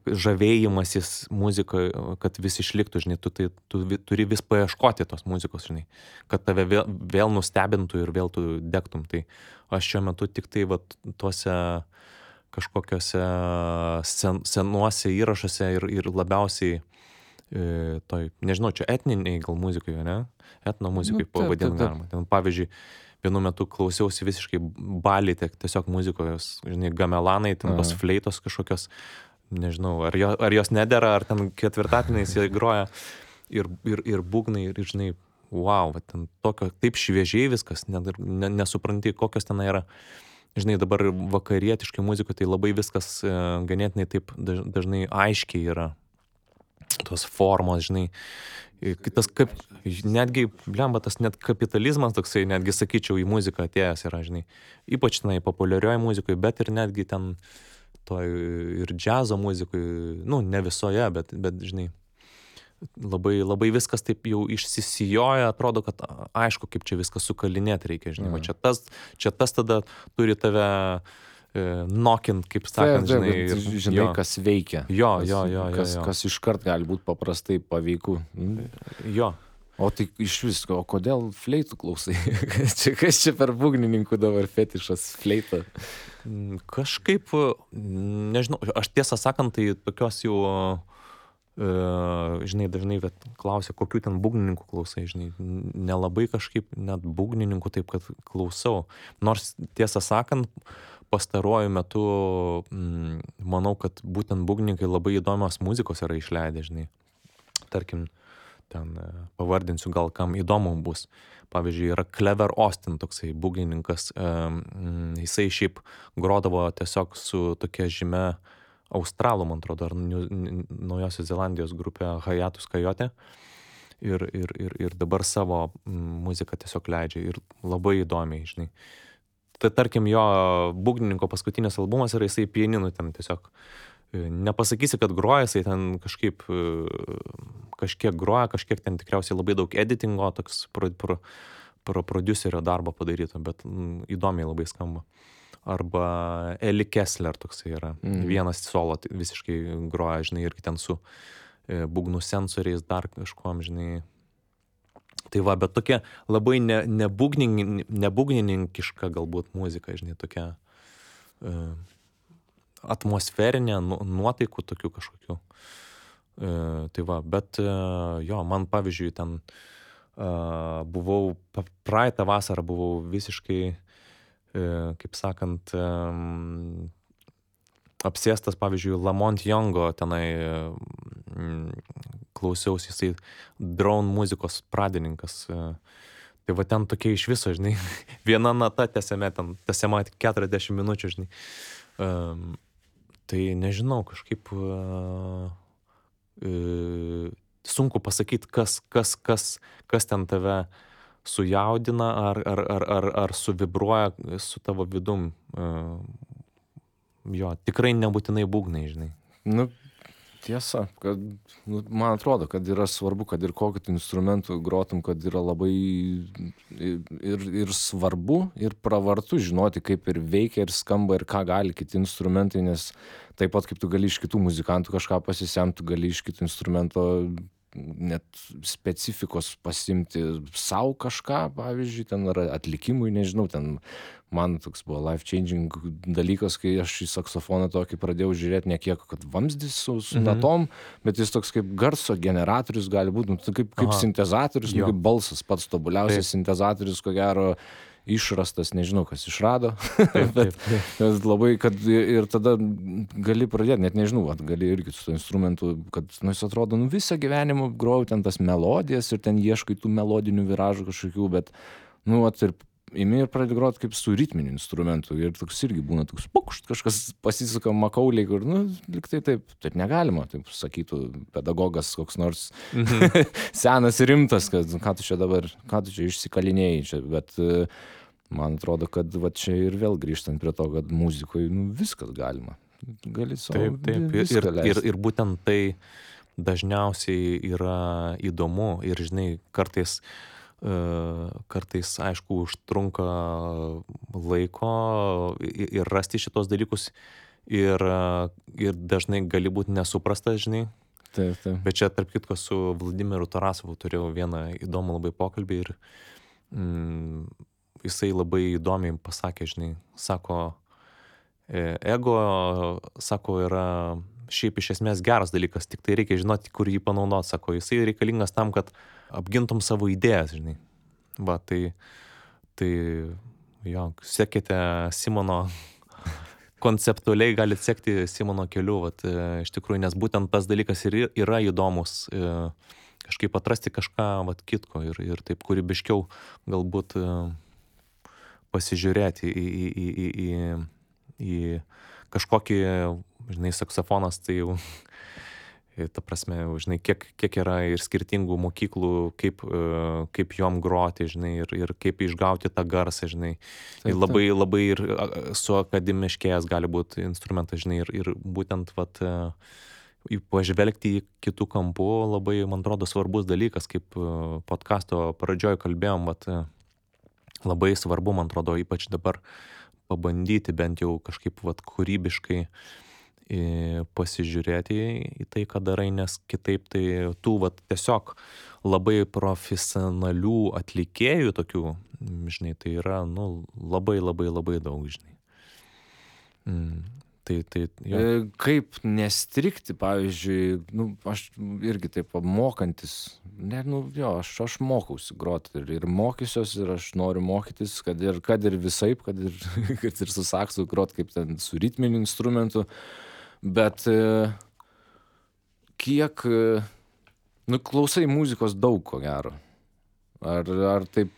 žavėjimasis muzikoje, kad vis išliktų, žinai, tu turi vis paieškoti tos muzikos, žinai, kad tave vėl nustebintų ir vėl tu degtum. Tai aš šiuo metu tik tai vat tuose kažkokiuose senuose įrašuose ir labiausiai toj, nežinau, čia etniniai gal muzikoje, ne? Etno muzikai pavadinti galima. Ten, pavyzdžiui, vienu metu klausiausi visiškai Balį, tiesiog muzikos, žinai, gamelanai, ten tos fleitos kažkokios, nežinau, ar jos nedera, ar ten ketvirtatiniais jie groja ir būgnai, ir žinai, wow, ten tokio, taip šviežiai viskas, nesupranti, kokios ten yra. Žinai, dabar vakarietiškai muzikoje tai labai viskas ganėtinai taip dažnai aiškiai yra. Tos formos, žinai, tas kaip, netgi, blemba, tas net kapitalizmas toksai, netgi sakyčiau, į muziką atėjęs yra, žinai, ypač tenai populiarioje muzikoje, bet ir netgi ten toj ir džiazo muzikoje, nu, ne visoje, bet žinai, labai viskas taip jau išsisijoja, atrodo, kad aišku, kaip čia viskas sukalinėti reikia, žinai, va čia tas tada turi tave nokint, kaip sakant, žinai. Žinai, kas veikia. Jo. Kas iškart gali būti paprastai paveiku. Jo. O tai iš visko, o kodėl fleitų klausai? Kas čia per būgnininkų dabar fetišas fleita? Kažkaip, nežinau, aš tiesą sakant, tai tokios jau, žinai, dažnai klausia, kokių ten būgnininkų klausai, žinai, nelabai kažkaip net būgnininkų taip, kad klausau. Nors tiesą sakant, pastaruoju metu manau, kad būtent būgnininkai labai įdomios muzikos yra išleidę, žinai. Tarkim, ten pavardinsiu, gal kam įdomu bus. Pavyzdžiui, yra Clever Austin, toksai būgnininkas. Jisai šiaip grodavo tiesiog su tokia žymia australų, man atrodo, ar Naujosios Zelandijos grupė Hiatus Kaijote. Ir dabar savo muziką tiesiog leidžia. Ir labai įdomiai, žinai. Tai tarkim, jo būgnininko paskutinis albumas yra, jisai pianinu ten tiesiog. Nepasakysi, kad groja, jisai ten kažkiek groja, kažkiek ten tikriausiai labai daug editingo, toks prodiuserio darbo padaryto, bet įdomiai labai skamba. Arba Eli Kessler toksai yra. Vienas solo visiškai groja, žinai, irgi ten su būgnų sensoriais dar kažkuom, žinai. Tai va, bet tokia labai nebūgnininkiška galbūt muzika, žinai, tokia atmosferinė, nuotaikų tokių kažkokių. Tai va, bet jo, man pavyzdžiui ten buvau, praeitą vasarą buvau visiškai, kaip sakant, apsėstas, pavyzdžiui, Lamont Youngo tenai klausiausi, jisai drone muzikos pradininkas. Tai va ten tokie iš viso, žinai, viena nata tęsiama 40 minučių, žinai. Tai nežinau, kažkaip sunku pasakyti, kas ten tave sujaudina ar suvibruoja su tavo vidum. Jo, tikrai nebūtinai būgnai, žinai. Nu, tiesa, kad, man atrodo, kad yra svarbu, kad ir kokiu tu instrumentu grotum, kad yra labai ir svarbu, ir pravartu žinoti, kaip ir veikia, ir skamba, ir ką gali kiti instrumentai, nes taip pat kaip tu gali iš kitų muzikantų kažką pasisemti, tu gali iš kitų instrumento net specifikos pasimti sau kažką, pavyzdžiui, ten ar atlikimui, nežinau, ten man toks buvo life-changing dalykas, kai aš į saksofoną tokį pradėjau žiūrėti ne kiek, kad vamzdis su natom, bet jis toks kaip garso generatorius gali būti, kaip sintezatorius, kaip balsas, pats tobuliausias sintezatorius, ko gero, išrastas, nežinau, kas išrado, bet labai, kad ir tada gali pradėti, net nežinau, gali irgi su to instrumentu, kad, jis atrodo, visą gyvenimą grojau ten tas melodijas ir ten ieškai tų melodinių viražų kažkokių, bet, ir imi ir pradedi groti kaip su ritminiu instrumentu ir toks irgi būna toks pukšt, kažkas pasisuka makauliai, kur, lyg tai taip negalima, taip sakytų pedagogas koks nors senas ir rimtas, kad ką tu čia išsikalinėjai čia, bet man atrodo, kad va čia ir vėl grįžtant prie to, kad muzikoje viskas galima. Gali savo viską leisti. Ir būtent tai dažniausiai yra įdomu ir, žinai, kartais, aišku, užtrunka laiko ir rasti šitos dalykus ir dažnai gali būti nesuprastas, žinai. Taip. Bet čia, tarp kitko, su Vladimiru Tarasovu turėjau vieną įdomų labai pokalbį ir jisai labai įdomiai pasakė, žinai, sako, ego, sako, yra šiaip iš esmės geras dalykas, tik tai reikia žinoti, kur jį panaudoti, sako, jisai reikalingas tam, kad apgintum savo idėjas, žinai. Va, tai jo, sekite Simono, konceptualiai galite sekti Simono keliu, vat, iš tikrųjų, nes būtent tas dalykas ir yra įdomus, kažkaip atrasti kažką, vat, kitko ir taip kūrybiškiau galbūt pasižiūrėti į kažkokį, žinai, saksofonas, tai jau, ta prasme, žinai, kiek yra ir skirtingų mokyklų, kaip jom groti, žinai, ir kaip išgauti tą garsą, žinai. Ir labai ir su akademiškėjęs gali būti instrumentas, žinai, ir būtent, vat, pažvelgti į kitų kampų labai, man atrodo, svarbus dalykas, kaip podcasto pradžioj kalbėjom, vat, labai svarbu, man atrodo, ypač dabar pabandyti bent jau kažkaip, vat, kūrybiškai pasižiūrėti į tai, ką darai, nes kitaip tai tų, vat, tiesiog labai profesionalių atlikėjų tokių, žinai, tai yra, labai daug, žinai. Jo. Kaip nestrikti, pavyzdžiui, aš irgi taip mokantis, aš mokausi groti ir mokysiuos ir aš noriu mokytis, kad ir visaip, kad ir su saksu groti kaip ten su ritminiu instrumentu, bet kiek, klausai muzikos daug, ko gero. Ar taip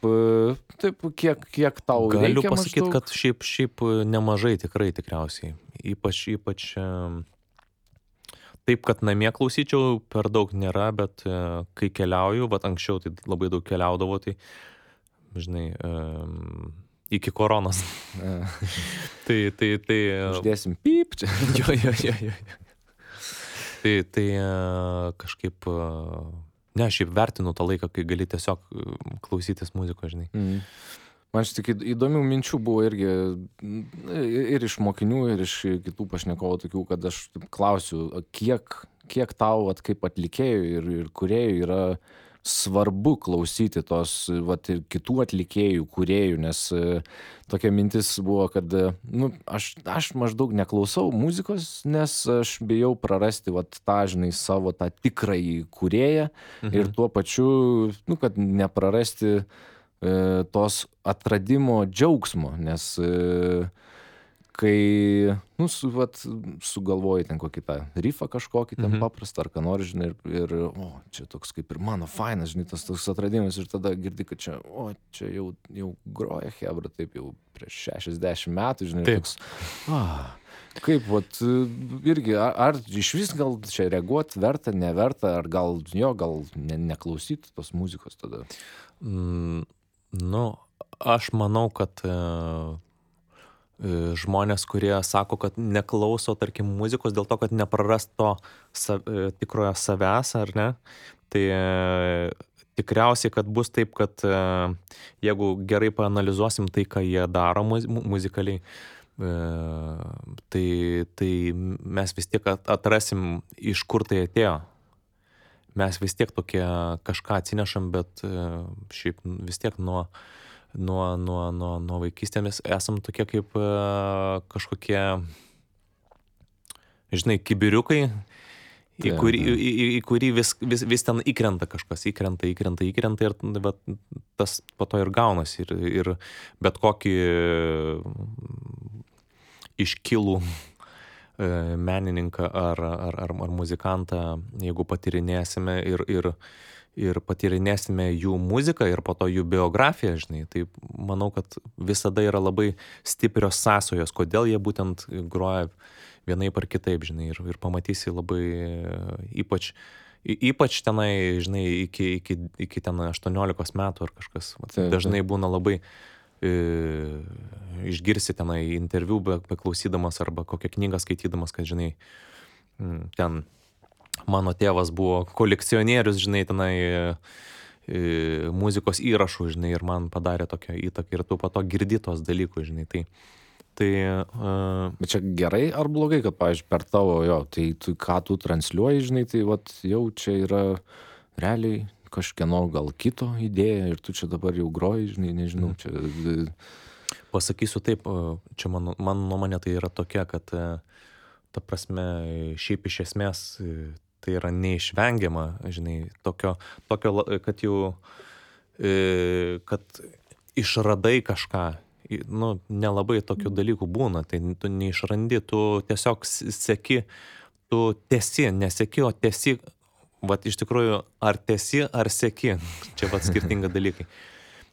kiek tau reikia Galiu pasakyti, maždaug? kad šiaip nemažai tikriausiai. Ypač taip, kad namie klausyčiau, per daug nėra, bet kai keliauju, vat anksčiau tai labai daug keliaudavo, tai, žinai, iki koronos. tai Uždėsim pyp čia. Jo. Tai kažkaip, šiaip vertinu tą laiką, kai gali tiesiog klausytis muzikos, žinai. Man tik įdomių minčių buvo irgi ir iš mokinių, ir iš kitų pašnekovų tokių, kad aš klausiu, kiek tau, kaip atlikėjų ir kūrėjų yra svarbu klausyti tos, ir kitų atlikėjų, kūrėjų, nes tokia mintis buvo, kad, aš maždaug neklausau muzikos, nes aš bijau prarasti, tą, žinai, savo tą tikrąjį kūrėją ir tuo pačiu, kad neprarasti tos atradimo džiaugsmo, nes kai, sugalvoji ten kokį tą rifą kažkokį ten paprastą, ar ką nors, žinai, ir čia toks kaip ir mano fainas, žinai, tas toks atradimas, ir tada girdi, kad čia jau groja chebra, taip jau prieš 60 metų, žinai, Taip. toks, kaip, irgi, ar iš vis gal čia reaguoti verta, neverta, ar gal neklausyti tos muzikos tada? Aš manau, kad žmonės, kurie sako, kad neklauso, tarkim, muzikos dėl to, kad neprarast to tikrojo savęs, ar ne, tai tikriausiai, kad bus taip, kad jeigu gerai paanalizuosim tai, ką jie daro muzikaliai, tai mes vis tiek atrasim, iš kur tai atėjo. Mes vis tiek tokie kažką atsinešam, bet šiaip vis tiek nuo vaikystėmis esam tokie kaip kažkokie, žinai, kibiriukai, į kurį vis ten įkrenta kažkas, įkrenta ir tas po to ir gaunasi. Ir bet kokį iškilų menininką ar muzikantą, jeigu patyrinėsime ir patyrinėsime jų muziką ir po to jų biografiją, žinai, tai manau, kad visada yra labai stiprios sąsajos, kodėl jie būtent groja vienaip ar kitaip, žinai, ir pamatysi labai ypač tenai, žinai, iki ten 18 metų ar kažkas. Dažnai būna labai išgirsi tenai interviu beklausydamas arba kokią knygą skaitydamas, kad, žinai, ten mano tėvas buvo kolekcionierius, žinai, tenai muzikos įrašų, žinai, ir man padarė tokią įtaką ir tu po to girdi tos dalykus, žinai, tai Bet čia gerai ar blogai, kad, pavyzdžiui, per tavo, tai ką tu transliuoji, žinai, tai jau čia yra realiai kažkieno gal kito idėja ir tu čia dabar jau groji, žinai, nežinau, čia... Pasakysiu taip, čia mano nuomonė tai yra tokia, kad ta prasme, šiaip iš esmės tai yra neišvengiama, žinai, tokio, kad jau, kad išradai kažką, nelabai tokių dalykų būna, tai tu neišrandi, tu tiesiog seki, tu tesi, neseki, o tesi, iš tikrųjų, ar tesi, ar seki, čia skirtingi dalykai.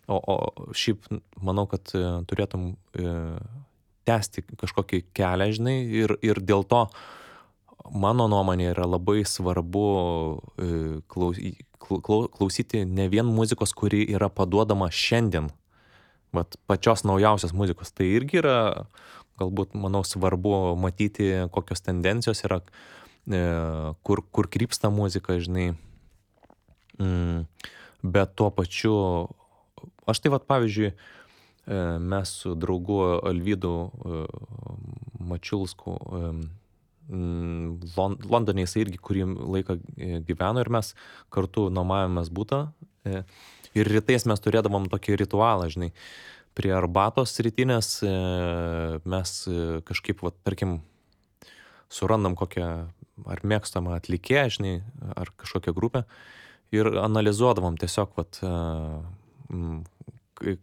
O šiaip manau, kad turėtum tęsti kažkokį kelią, žinai, ir dėl to mano nuomonė yra labai svarbu klausyti ne vien muzikos, kuri yra paduodama šiandien, pačios naujausios muzikos. Tai irgi yra, galbūt, manau, svarbu matyti, kokios tendencijos yra, kur krypsta muzika, žinai. Bet tuo pačiu, aš tai pavyzdžiui, mes su draugu Alvydu Mačiulsku Londone jis irgi kurį laiką gyveno ir mes kartu nuomavomės butą. Ir rytais mes turėdavom tokį ritualą, žinai, prie arbatos rytinės mes kažkaip, tarkim, surandam kokią ar mėgstamą atlikėją, žinai, ar kažkokią grupę ir analizuodavom tiesiog,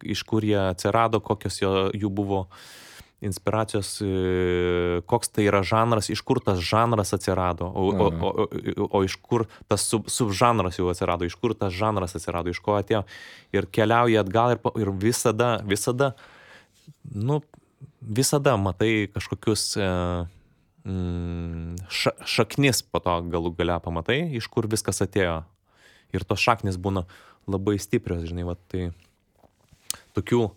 iš kur jie atsirado, kokios jų buvo inspiracijos, koks tai yra žanras, iš kur tas žanras atsirado, o iš kur tas subžanras jau atsirado, iš kur tas žanras atsirado, iš ko atėjo. Ir keliauja atgal ir visada matai kažkokius šaknis po to galų gale pamatai, iš kur viskas atėjo. Ir tos šaknis būna labai stiprios, žinai, tai tokių,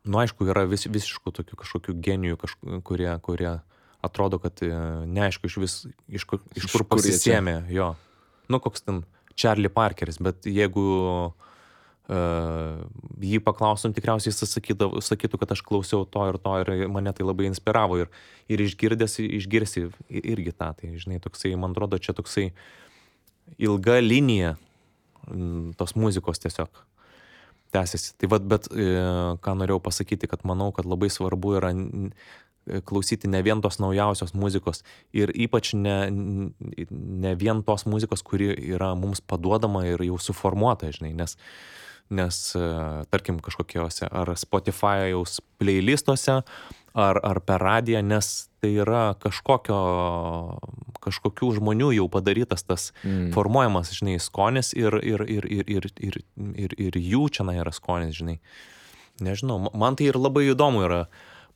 aišku, yra visiškų tokių kažkokių genijų, kurie atrodo, kad neaišku iš kur pasisėmė jo. Koks ten Charlie Parkeris, bet jeigu jį paklaustum, tikriausiai jis sakytų, kad aš klausiau to ir mane tai labai inspiravo ir išgirsi irgi tą, tai žinai, toksai, man atrodo, čia toksai ilga linija tos muzikos tiesiog tęsiasi. Tai bet ką norėjau pasakyti, kad manau, kad labai svarbu yra klausyti ne vien tos naujausios muzikos ir ypač ne vien tos muzikos, kuri yra mums paduodama ir jau suformuota, žinai, nes tarkim kažkokiuose ar Spotify'aus playlistuose, ar per radiją, nes tai yra kažkokių žmonių jau padarytas tas formuojamas, žinai, skonis ir jų čia yra skonis, žinai. Nežinau, man tai ir labai įdomu yra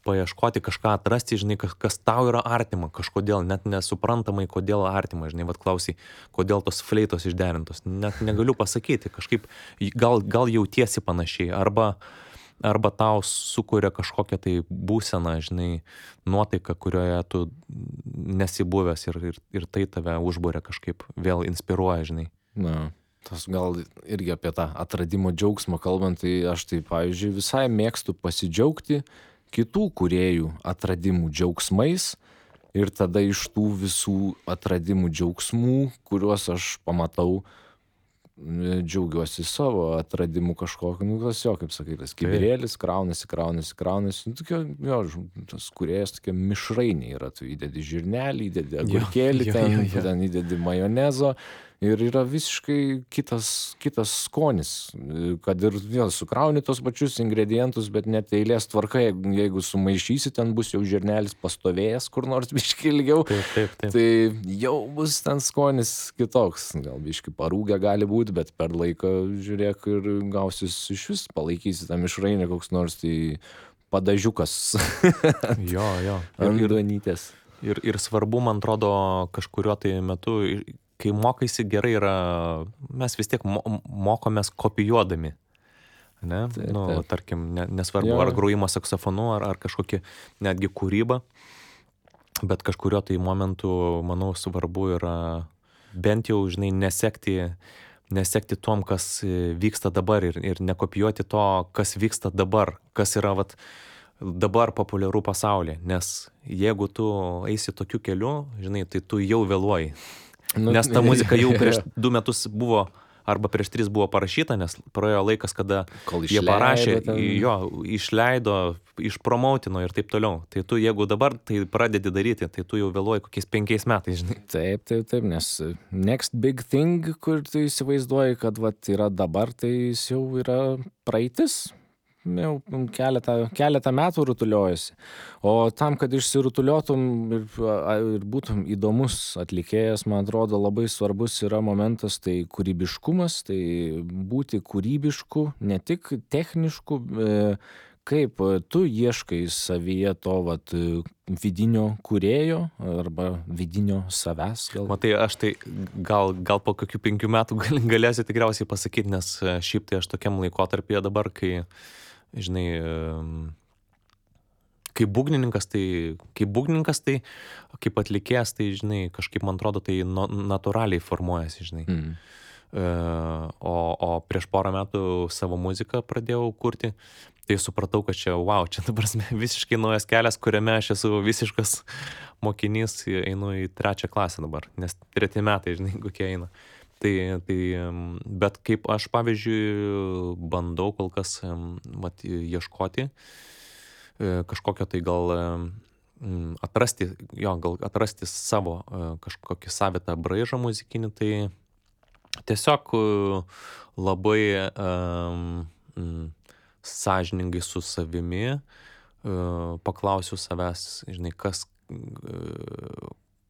paieškoti kažką atrasti, žinai, kas tau yra artima, kažkodėl, net nesuprantamai, kodėl artima, žinai, vat klausai, kodėl tos fleitos išderintos, net negaliu pasakyti, kažkaip gal jautiesi panašiai, arba tau sukuria kažkokią tai būseną, žinai, nuotaiką, kurioje tu nesi buvęs ir tai tave užburia kažkaip, vėl inspiruoja, žinai. Na, tas gal irgi apie tą atradimo džiaugsmą kalbant, tai aš tai, pavyzdžiui, visai mėgstu pasidžiaugti kitų kūrėjų atradimų džiaugsmais ir tada iš tų visų atradimų džiaugsmų, kuriuos aš pamatau, džiaugiuosi savo atradimu kažkokiu, nu, tas jo, kaip sakai, tas kibirėlis kraunasi, nu, tokia, jo, tas kūrėjas tokia mišrainė yra, tu įdedi žirnelį, įdedi agurkėlį, ten įdedi majonezo ir yra visiškai kitas skonis, kad ir vėl sukrauni tos pačius ingredientus, bet net eilės tvarka, jeigu sumaišysi, ten bus jau žirnelis pastovėjęs kur nors biškį ilgiau, Taip. tai jau bus ten skonis kitoks, gal biškį parūgę gali būti, bet per laiką, žiūrėk, ir gausis iš vis, palaikysi tą mišrainę koks nors, tai padažiukas Jo. ant duonytės. Ir svarbu, man atrodo, kažkuriuo tai metu, kai mokaisi gerai yra, mes vis tiek mokomės kopijuodami. Ne? Taip. Tarkim, nesvarbu, ar grojimo saksofonu, ar kažkokia netgi kūryba, bet kažkurio tai momentu, manau, svarbu yra bent jau, žinai, nesekti tom, kas vyksta dabar ir nekopijuoti to, kas vyksta dabar, kas yra dabar populiaru pasaulyje, nes jeigu tu eisi tokiu keliu, žinai, tai tu jau vėluoji. Nes ta muzika jau prieš 2 metus buvo, arba prieš 3 buvo parašyta, nes praėjo laikas, kada jie parašė, išleido, išpromoutino ir taip toliau. Tai tu, jeigu dabar tai pradedi daryti, tai tu jau vėluoji kokiais 5 metais, žinai. Taip, nes next big thing, kur tu įsivaizduoji, kad yra dabar, tai jis jau yra praeitis. Jau keletą metų rutuliojasi. O tam, kad išsirutuliotum ir būtum įdomus atlikėjas, man atrodo, labai svarbus yra momentas, tai kūrybiškumas, tai būti kūrybišku, ne tik technišku, kaip tu ieškai savyje to vidinio kūrėjo arba vidinio savęs. Matai, aš tai gal po kokių 5 metų galėsiu tikriausiai pasakyti, nes šiaip tai aš tokiam laikotarpyje dabar, kai žinai, kaip būgnininkas, tai kaip atlikėjas, tai, žinai, kažkaip, man atrodo, tai natūraliai formuojasi, žinai. O prieš porą metų savo muziką pradėjau kurti, tai supratau, kad čia dabar visiškai naujas kelias, kuriame aš esu visiškas mokinys, einu į 3 klasę dabar, nes 3 metai, žinai, kokie eina. Bet kaip aš, pavyzdžiui, bandau kol kas ieškoti kažkokio tai gal atrasti savo kažkokį savitą braižą muzikinį, tai tiesiog labai sąžiningai su savimi paklausiu savęs, žinai,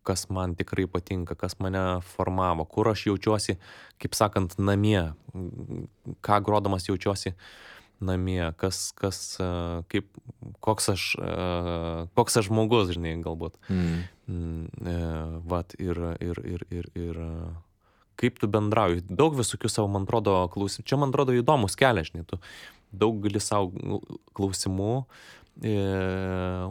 kas man tikrai patinka, kas mane formavo, kur aš jaučiuosi, kaip sakant, namie, ką grodamas jaučiuosi namie, koks aš žmogus, žinai, galbūt. Ir kaip tu bendrauji. Daug visokių savo, man atrodo, klausimų. Čia, man atrodo, įdomus kelias, žinai, tu daug gali savo klausimų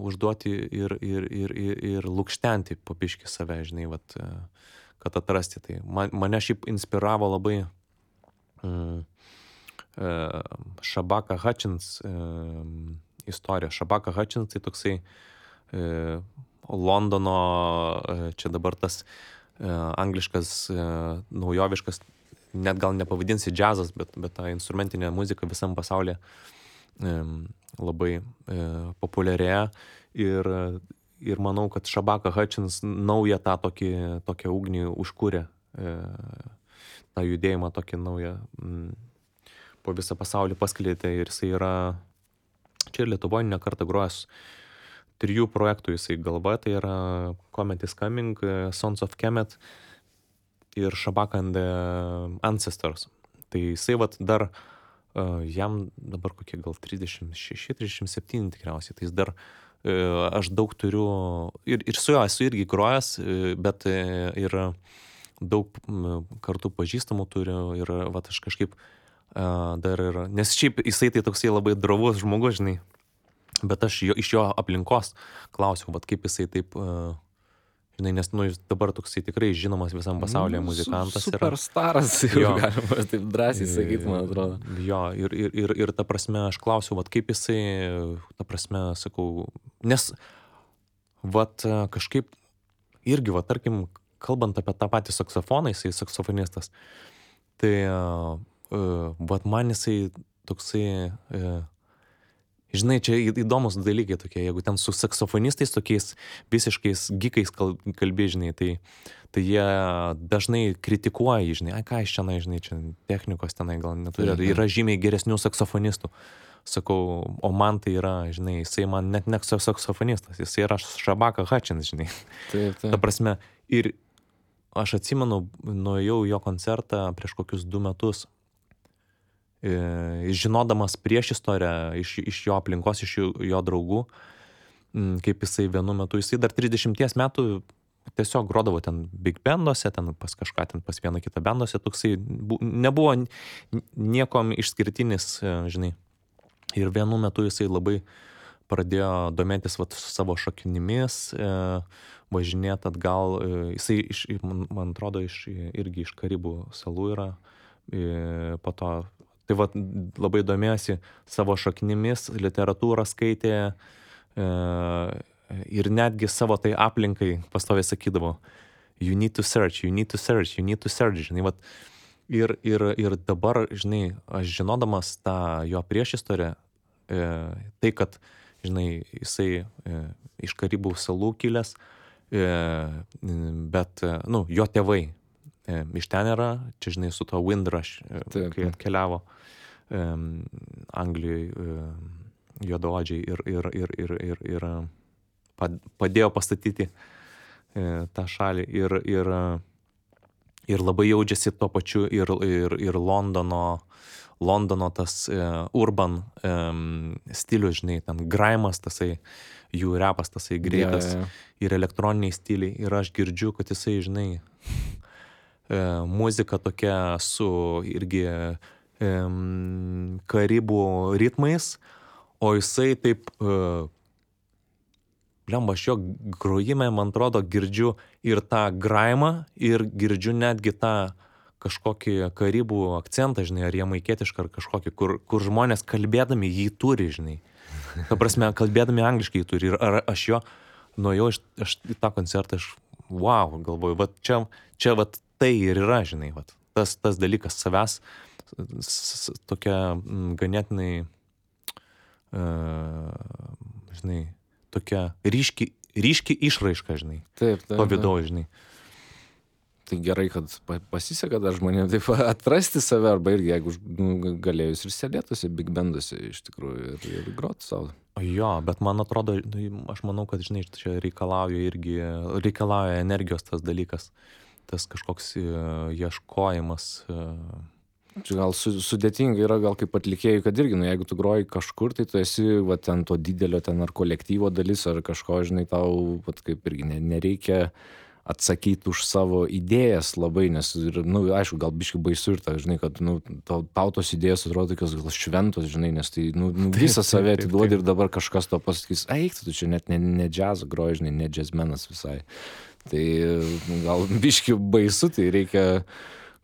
užduoti ir lukštenti po biškį save, žinai, kad atrasti tai. Mane šiaip inspiravo labai Shabaka Hutchins istorija. Shabaka Hutchins tai toksai Londono, čia dabar tas angliškas, naujoviškas, net gal nepavadinsi džiazas, bet ta instrumentinė muzika visam pasaulyje labai populiarėja ir manau, kad Shabaka Hutchins naują tą tokią ugnį užkūrė, tą judėjimą tokį naują po visą pasaulį paskleidė ir jisai yra čia ir Lietuvoje ne kartą grojęs 3 projektų jisai galva, tai yra Comet is Coming, Sons of Kemet ir Shabak and the Ancestors. Tai jisai vat dar, jam dabar kokie gal 36-37 tikriausiai, tai jis dar, aš daug turiu, ir su juo esu irgi grojęs, bet ir daug kartų pažįstamų turiu ir vat aš kažkaip dar ir, nes šiaip jisai tai toksai labai drovus žmogus, žinai, bet aš iš jo aplinkos klausiau, vat kaip jisai taip, žinai, nes nu, jis dabar toksai tikrai žinomas visam pasaulyje muzikantas yra. Superstaras, jau galima taip drąsiai sakyti, man atrodo. Jo, ir ta prasme, aš klausiau, vat kaip jisai, ta prasme, sakau, nes vat kažkaip irgi, vat tarkim, kalbant apie tą patį saksofoną, jisai saksofonistas, tai vat man jisai toksai, žinai, čia įdomus dalykai tokie, jeigu ten su saksofonistais tokiais visiškais gikais kalbi, žinai, tai jie dažnai kritikuoja, žinai, ką iš čia, žinai, čia technikos tenai gal neturi, yra žymiai geresnių saksofonistų. Sakau, o man tai yra, žinai, jisai man net ne saksofonistas, jisai yra Shabaka Hutchins, žinai. Taip. Ta prasme, ir aš atsimenu, nuėjau jo koncertą prieš kokius 2 metus, žinodamas prieš istoriją iš jo aplinkos, iš jo draugų, kaip jisai vienu metu, jisai dar 30 metų tiesiog grodavo ten big banduose, ten pas kažką, ten pas vieną kitą banduose, toksai nebuvo niekom išskirtinis, žinai. Ir vienu metu jisai labai pradėjo domėtis vat savo šaknimis, važinėti atgal, jisai man atrodo irgi iš Karibų salų yra, po to, tai vat labai domėjosi savo šaknimis, literatūrą skaitė, ir netgi savo tai aplinkai pastoviai sakydavo, you need to search, žinai, vat. Ir dabar, žinai, aš žinodamas tą jo priešistorę, tai, kad, žinai, jisai iš Karibų salų kilęs, bet, nu, jo tėvai iš ten yra, čia, žinai, su to Windrush, kai atkeliavo Anglijoje juodaodžiai ir padėjo pastatyti tą šalį ir labai jaučiasi tuo pačiu ir Londono tas urban stilius, žinai, ten grimas tasai, jų repas tasai greitas, ir elektroniniai stiliai, ir aš girdžiu, kad jisai, žinai, muzika tokia su irgi Karibų ritmais, o jisai taip, lemba, aš jo grojime, man atrodo, girdžiu ir tą grimą, ir girdžiu netgi tą kažkokį Karibų akcentą, žinai, ar jamaikietišką, ar kažkokį, kur žmonės kalbėdami jį turi, žinai. Ta prasme, kalbėdami angliškai jį turi. Ir ar aš jo nuėjau aš į tą koncertą, aš, wow, galvoju, vat čia vat tai ir yra, žinai, vat. Tas dalykas savęs, tokia ganėtinai, žinai, tokia ryški išraiška, žinai. Taip. To vidaus, žinai. Tai gerai, kad pasiseka dar žmonėms taip atrasti save, arba irgi, jeigu galėjus ir sėdėtųsi big banduose iš tikrųjų ir groti savo. Jo, bet man atrodo, aš manau, kad, žinai, čia reikalauja energijos tas dalykas, tas kažkoks ieškojimas. Čia gal sudėtinga yra, gal kaip atlikėjai, kad irgi, jeigu tu groji kažkur, tai tu esi, va, ten to didelio, ten ar kolektyvo dalis, ar kažko, žinai, tau, va, kaip irgi nereikia atsakyti už savo idėjas labai, nes, aišku, gal biškai baisu ir ta, žinai, kad, tau tos idėjas atrodo tokios gal šventos, žinai, nes tai, visą save atiduodi ir dabar kažkas to pasakys, eik, tu čia net ne džiazą groji, žinai, ne džiazmenas visai. Tai gal biškai baisu, tai reikia,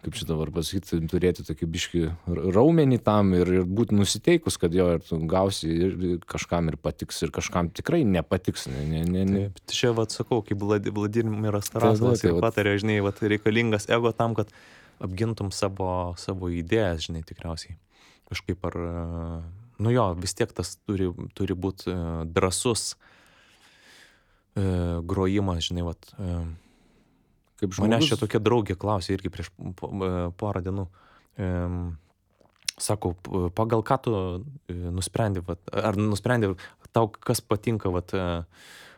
kaip čia dabar pasakyti, turėti tokį biškį raumenį tam ir būti nusiteikus, kad jo ir tu gausi ir kažkam ir patiks, ir kažkam tikrai nepatiks. Taip, čia, vat, sakau, kaip Vladimiras Tarasovas ir patarė, žinai, vat, reikalingas ego tam, kad apgintum savo idėjas, žinai, tikriausiai. Kažkaip ar, vis tiek tas turi būti drąsus grojimas, žinai, vat. Kaip žmogus. Manęs čia tokia draugė klausė irgi prieš porą dienų. Sako, pagal ką tu nusprendė, ar nusprendė tau kas patinka, vat,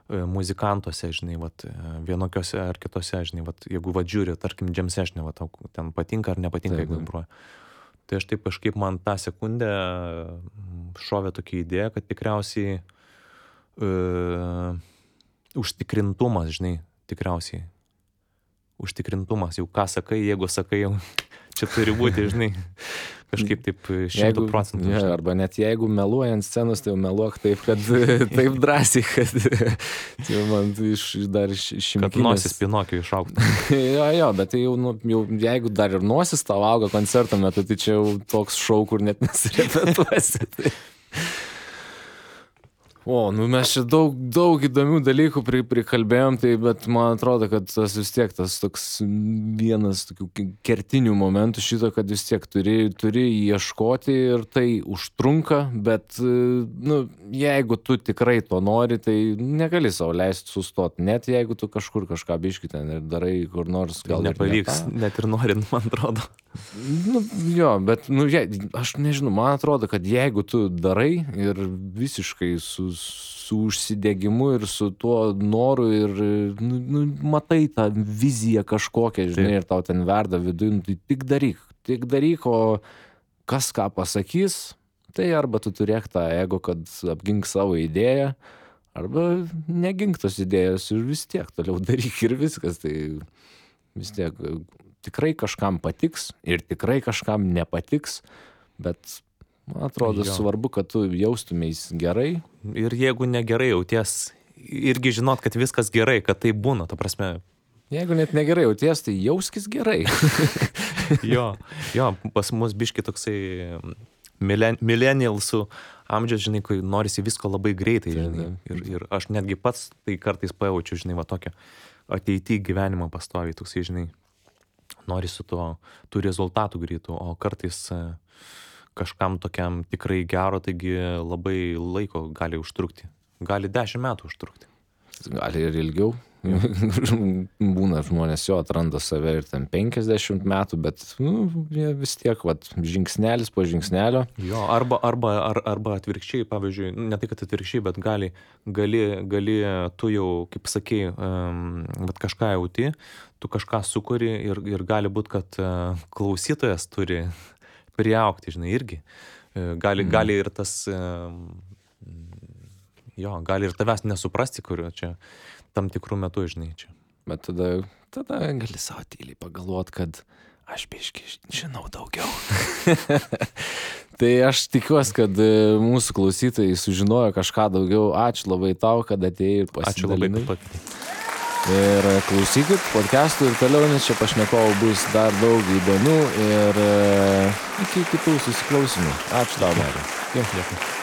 muzikantuose, žinai, vat, vienokiose ar kitose, žinai, vat, jeigu vat žiūri, tarkim, jam session'e, vat, tau ten patinka ar nepatinka, jeigu groja. Tai aš taip kažkaip man tą sekundę šovė tokia idėja, kad tikriausiai užtikrintumas, žinai, tikriausiai. Užtikrintumas, jau ką sakai, jeigu sakai, jau čia turi būti, žinai, kažkaip taip 100%. Ja, arba net jeigu meluoji ant scenos, tai jau meluok taip, kad taip drąsiai, kad tai man dar šimkinės. Kad nosis Pinokio išaugtų. Jo, bet tai jau, jau, jeigu dar ir nosis tau auga koncerto metu, tai čia jau toks šou, kur net nesirepetuosi. Tai. O, nu mes čia daug įdomių dalykų prikalbėjom, tai, bet man atrodo, kad tas vis tiek, tas toks vienas tokių kertinių momentų šito, kad vis tiek turi ieškoti ir tai užtrunka, bet, nu, jeigu tu tikrai to nori, tai negali savo leisti sustoti, net jeigu tu kažkur kažką biški ten ir darai kur nors gal nepavyks, net ir norint, man atrodo. Nu, jo, bet, nu, aš nežinau, man atrodo, kad jeigu tu darai ir visiškai su užsidegimu ir su tuo noru ir, nu, matai tą viziją kažkokią, žinai, ir tau ten verda viduje, tai tik daryk, o kas ką pasakys, tai arba tu turėk tą ego, kad apgink savo idėją, arba negink tos idėjos ir vis tiek toliau daryk ir viskas, tai vis tiek tikrai kažkam patiks ir tikrai kažkam nepatiks, bet man atrodo svarbu, kad tu jaustumeis gerai. Ir jeigu negerai jauties, irgi žinot, kad viskas gerai, kad tai būna, ta prasme. Jeigu net negerai jauties, tai jauskis gerai. jo, pas mus biški toksai millennialsų amžius, žinai, kai norisi visko labai greitai, žinai. Ir aš netgi pats tai kartais pajaučiu, žinai, va tokią ateitį gyvenimą pastoviai, toksai, žinai, norisi tų rezultatų greitų, o kartais kažkam tokiam tikrai gero, taigi labai laiko gali užtrukti. Gali 10 metų užtrukti. Gali ir ilgiau. Būna žmonės jo atranda save ir ten 50 metų, bet vis tiek žingsnelis po žingsnelio. Jo, arba atvirkščiai, pavyzdžiui, ne tai, kad atvirkščiai, bet gali tu jau, kaip sakei, kažką jauti, tu kažką sukuri ir gali būti, kad klausytojas turi priaugti, žinai, irgi. Gali ir tas, gali ir tavęs nesuprasti, kurio čia tam tikrų metų, žinai, čia. Bet tada gali savo tyliai pagalvoti, kad aš biški žinau daugiau. Tai aš tikiuosi, kad mūsų klausytojai sužinojo kažką daugiau. Ačiū labai tau, kad atėjai ir pasidalinai. Ačiū labai, kad pakvietei. Ir klausykit podcastų ir toliau, nes čia pašnekovų bus dar daug įdomių ir iki kitų susiklausimų. Ačiū tau, Marius. Dėkui.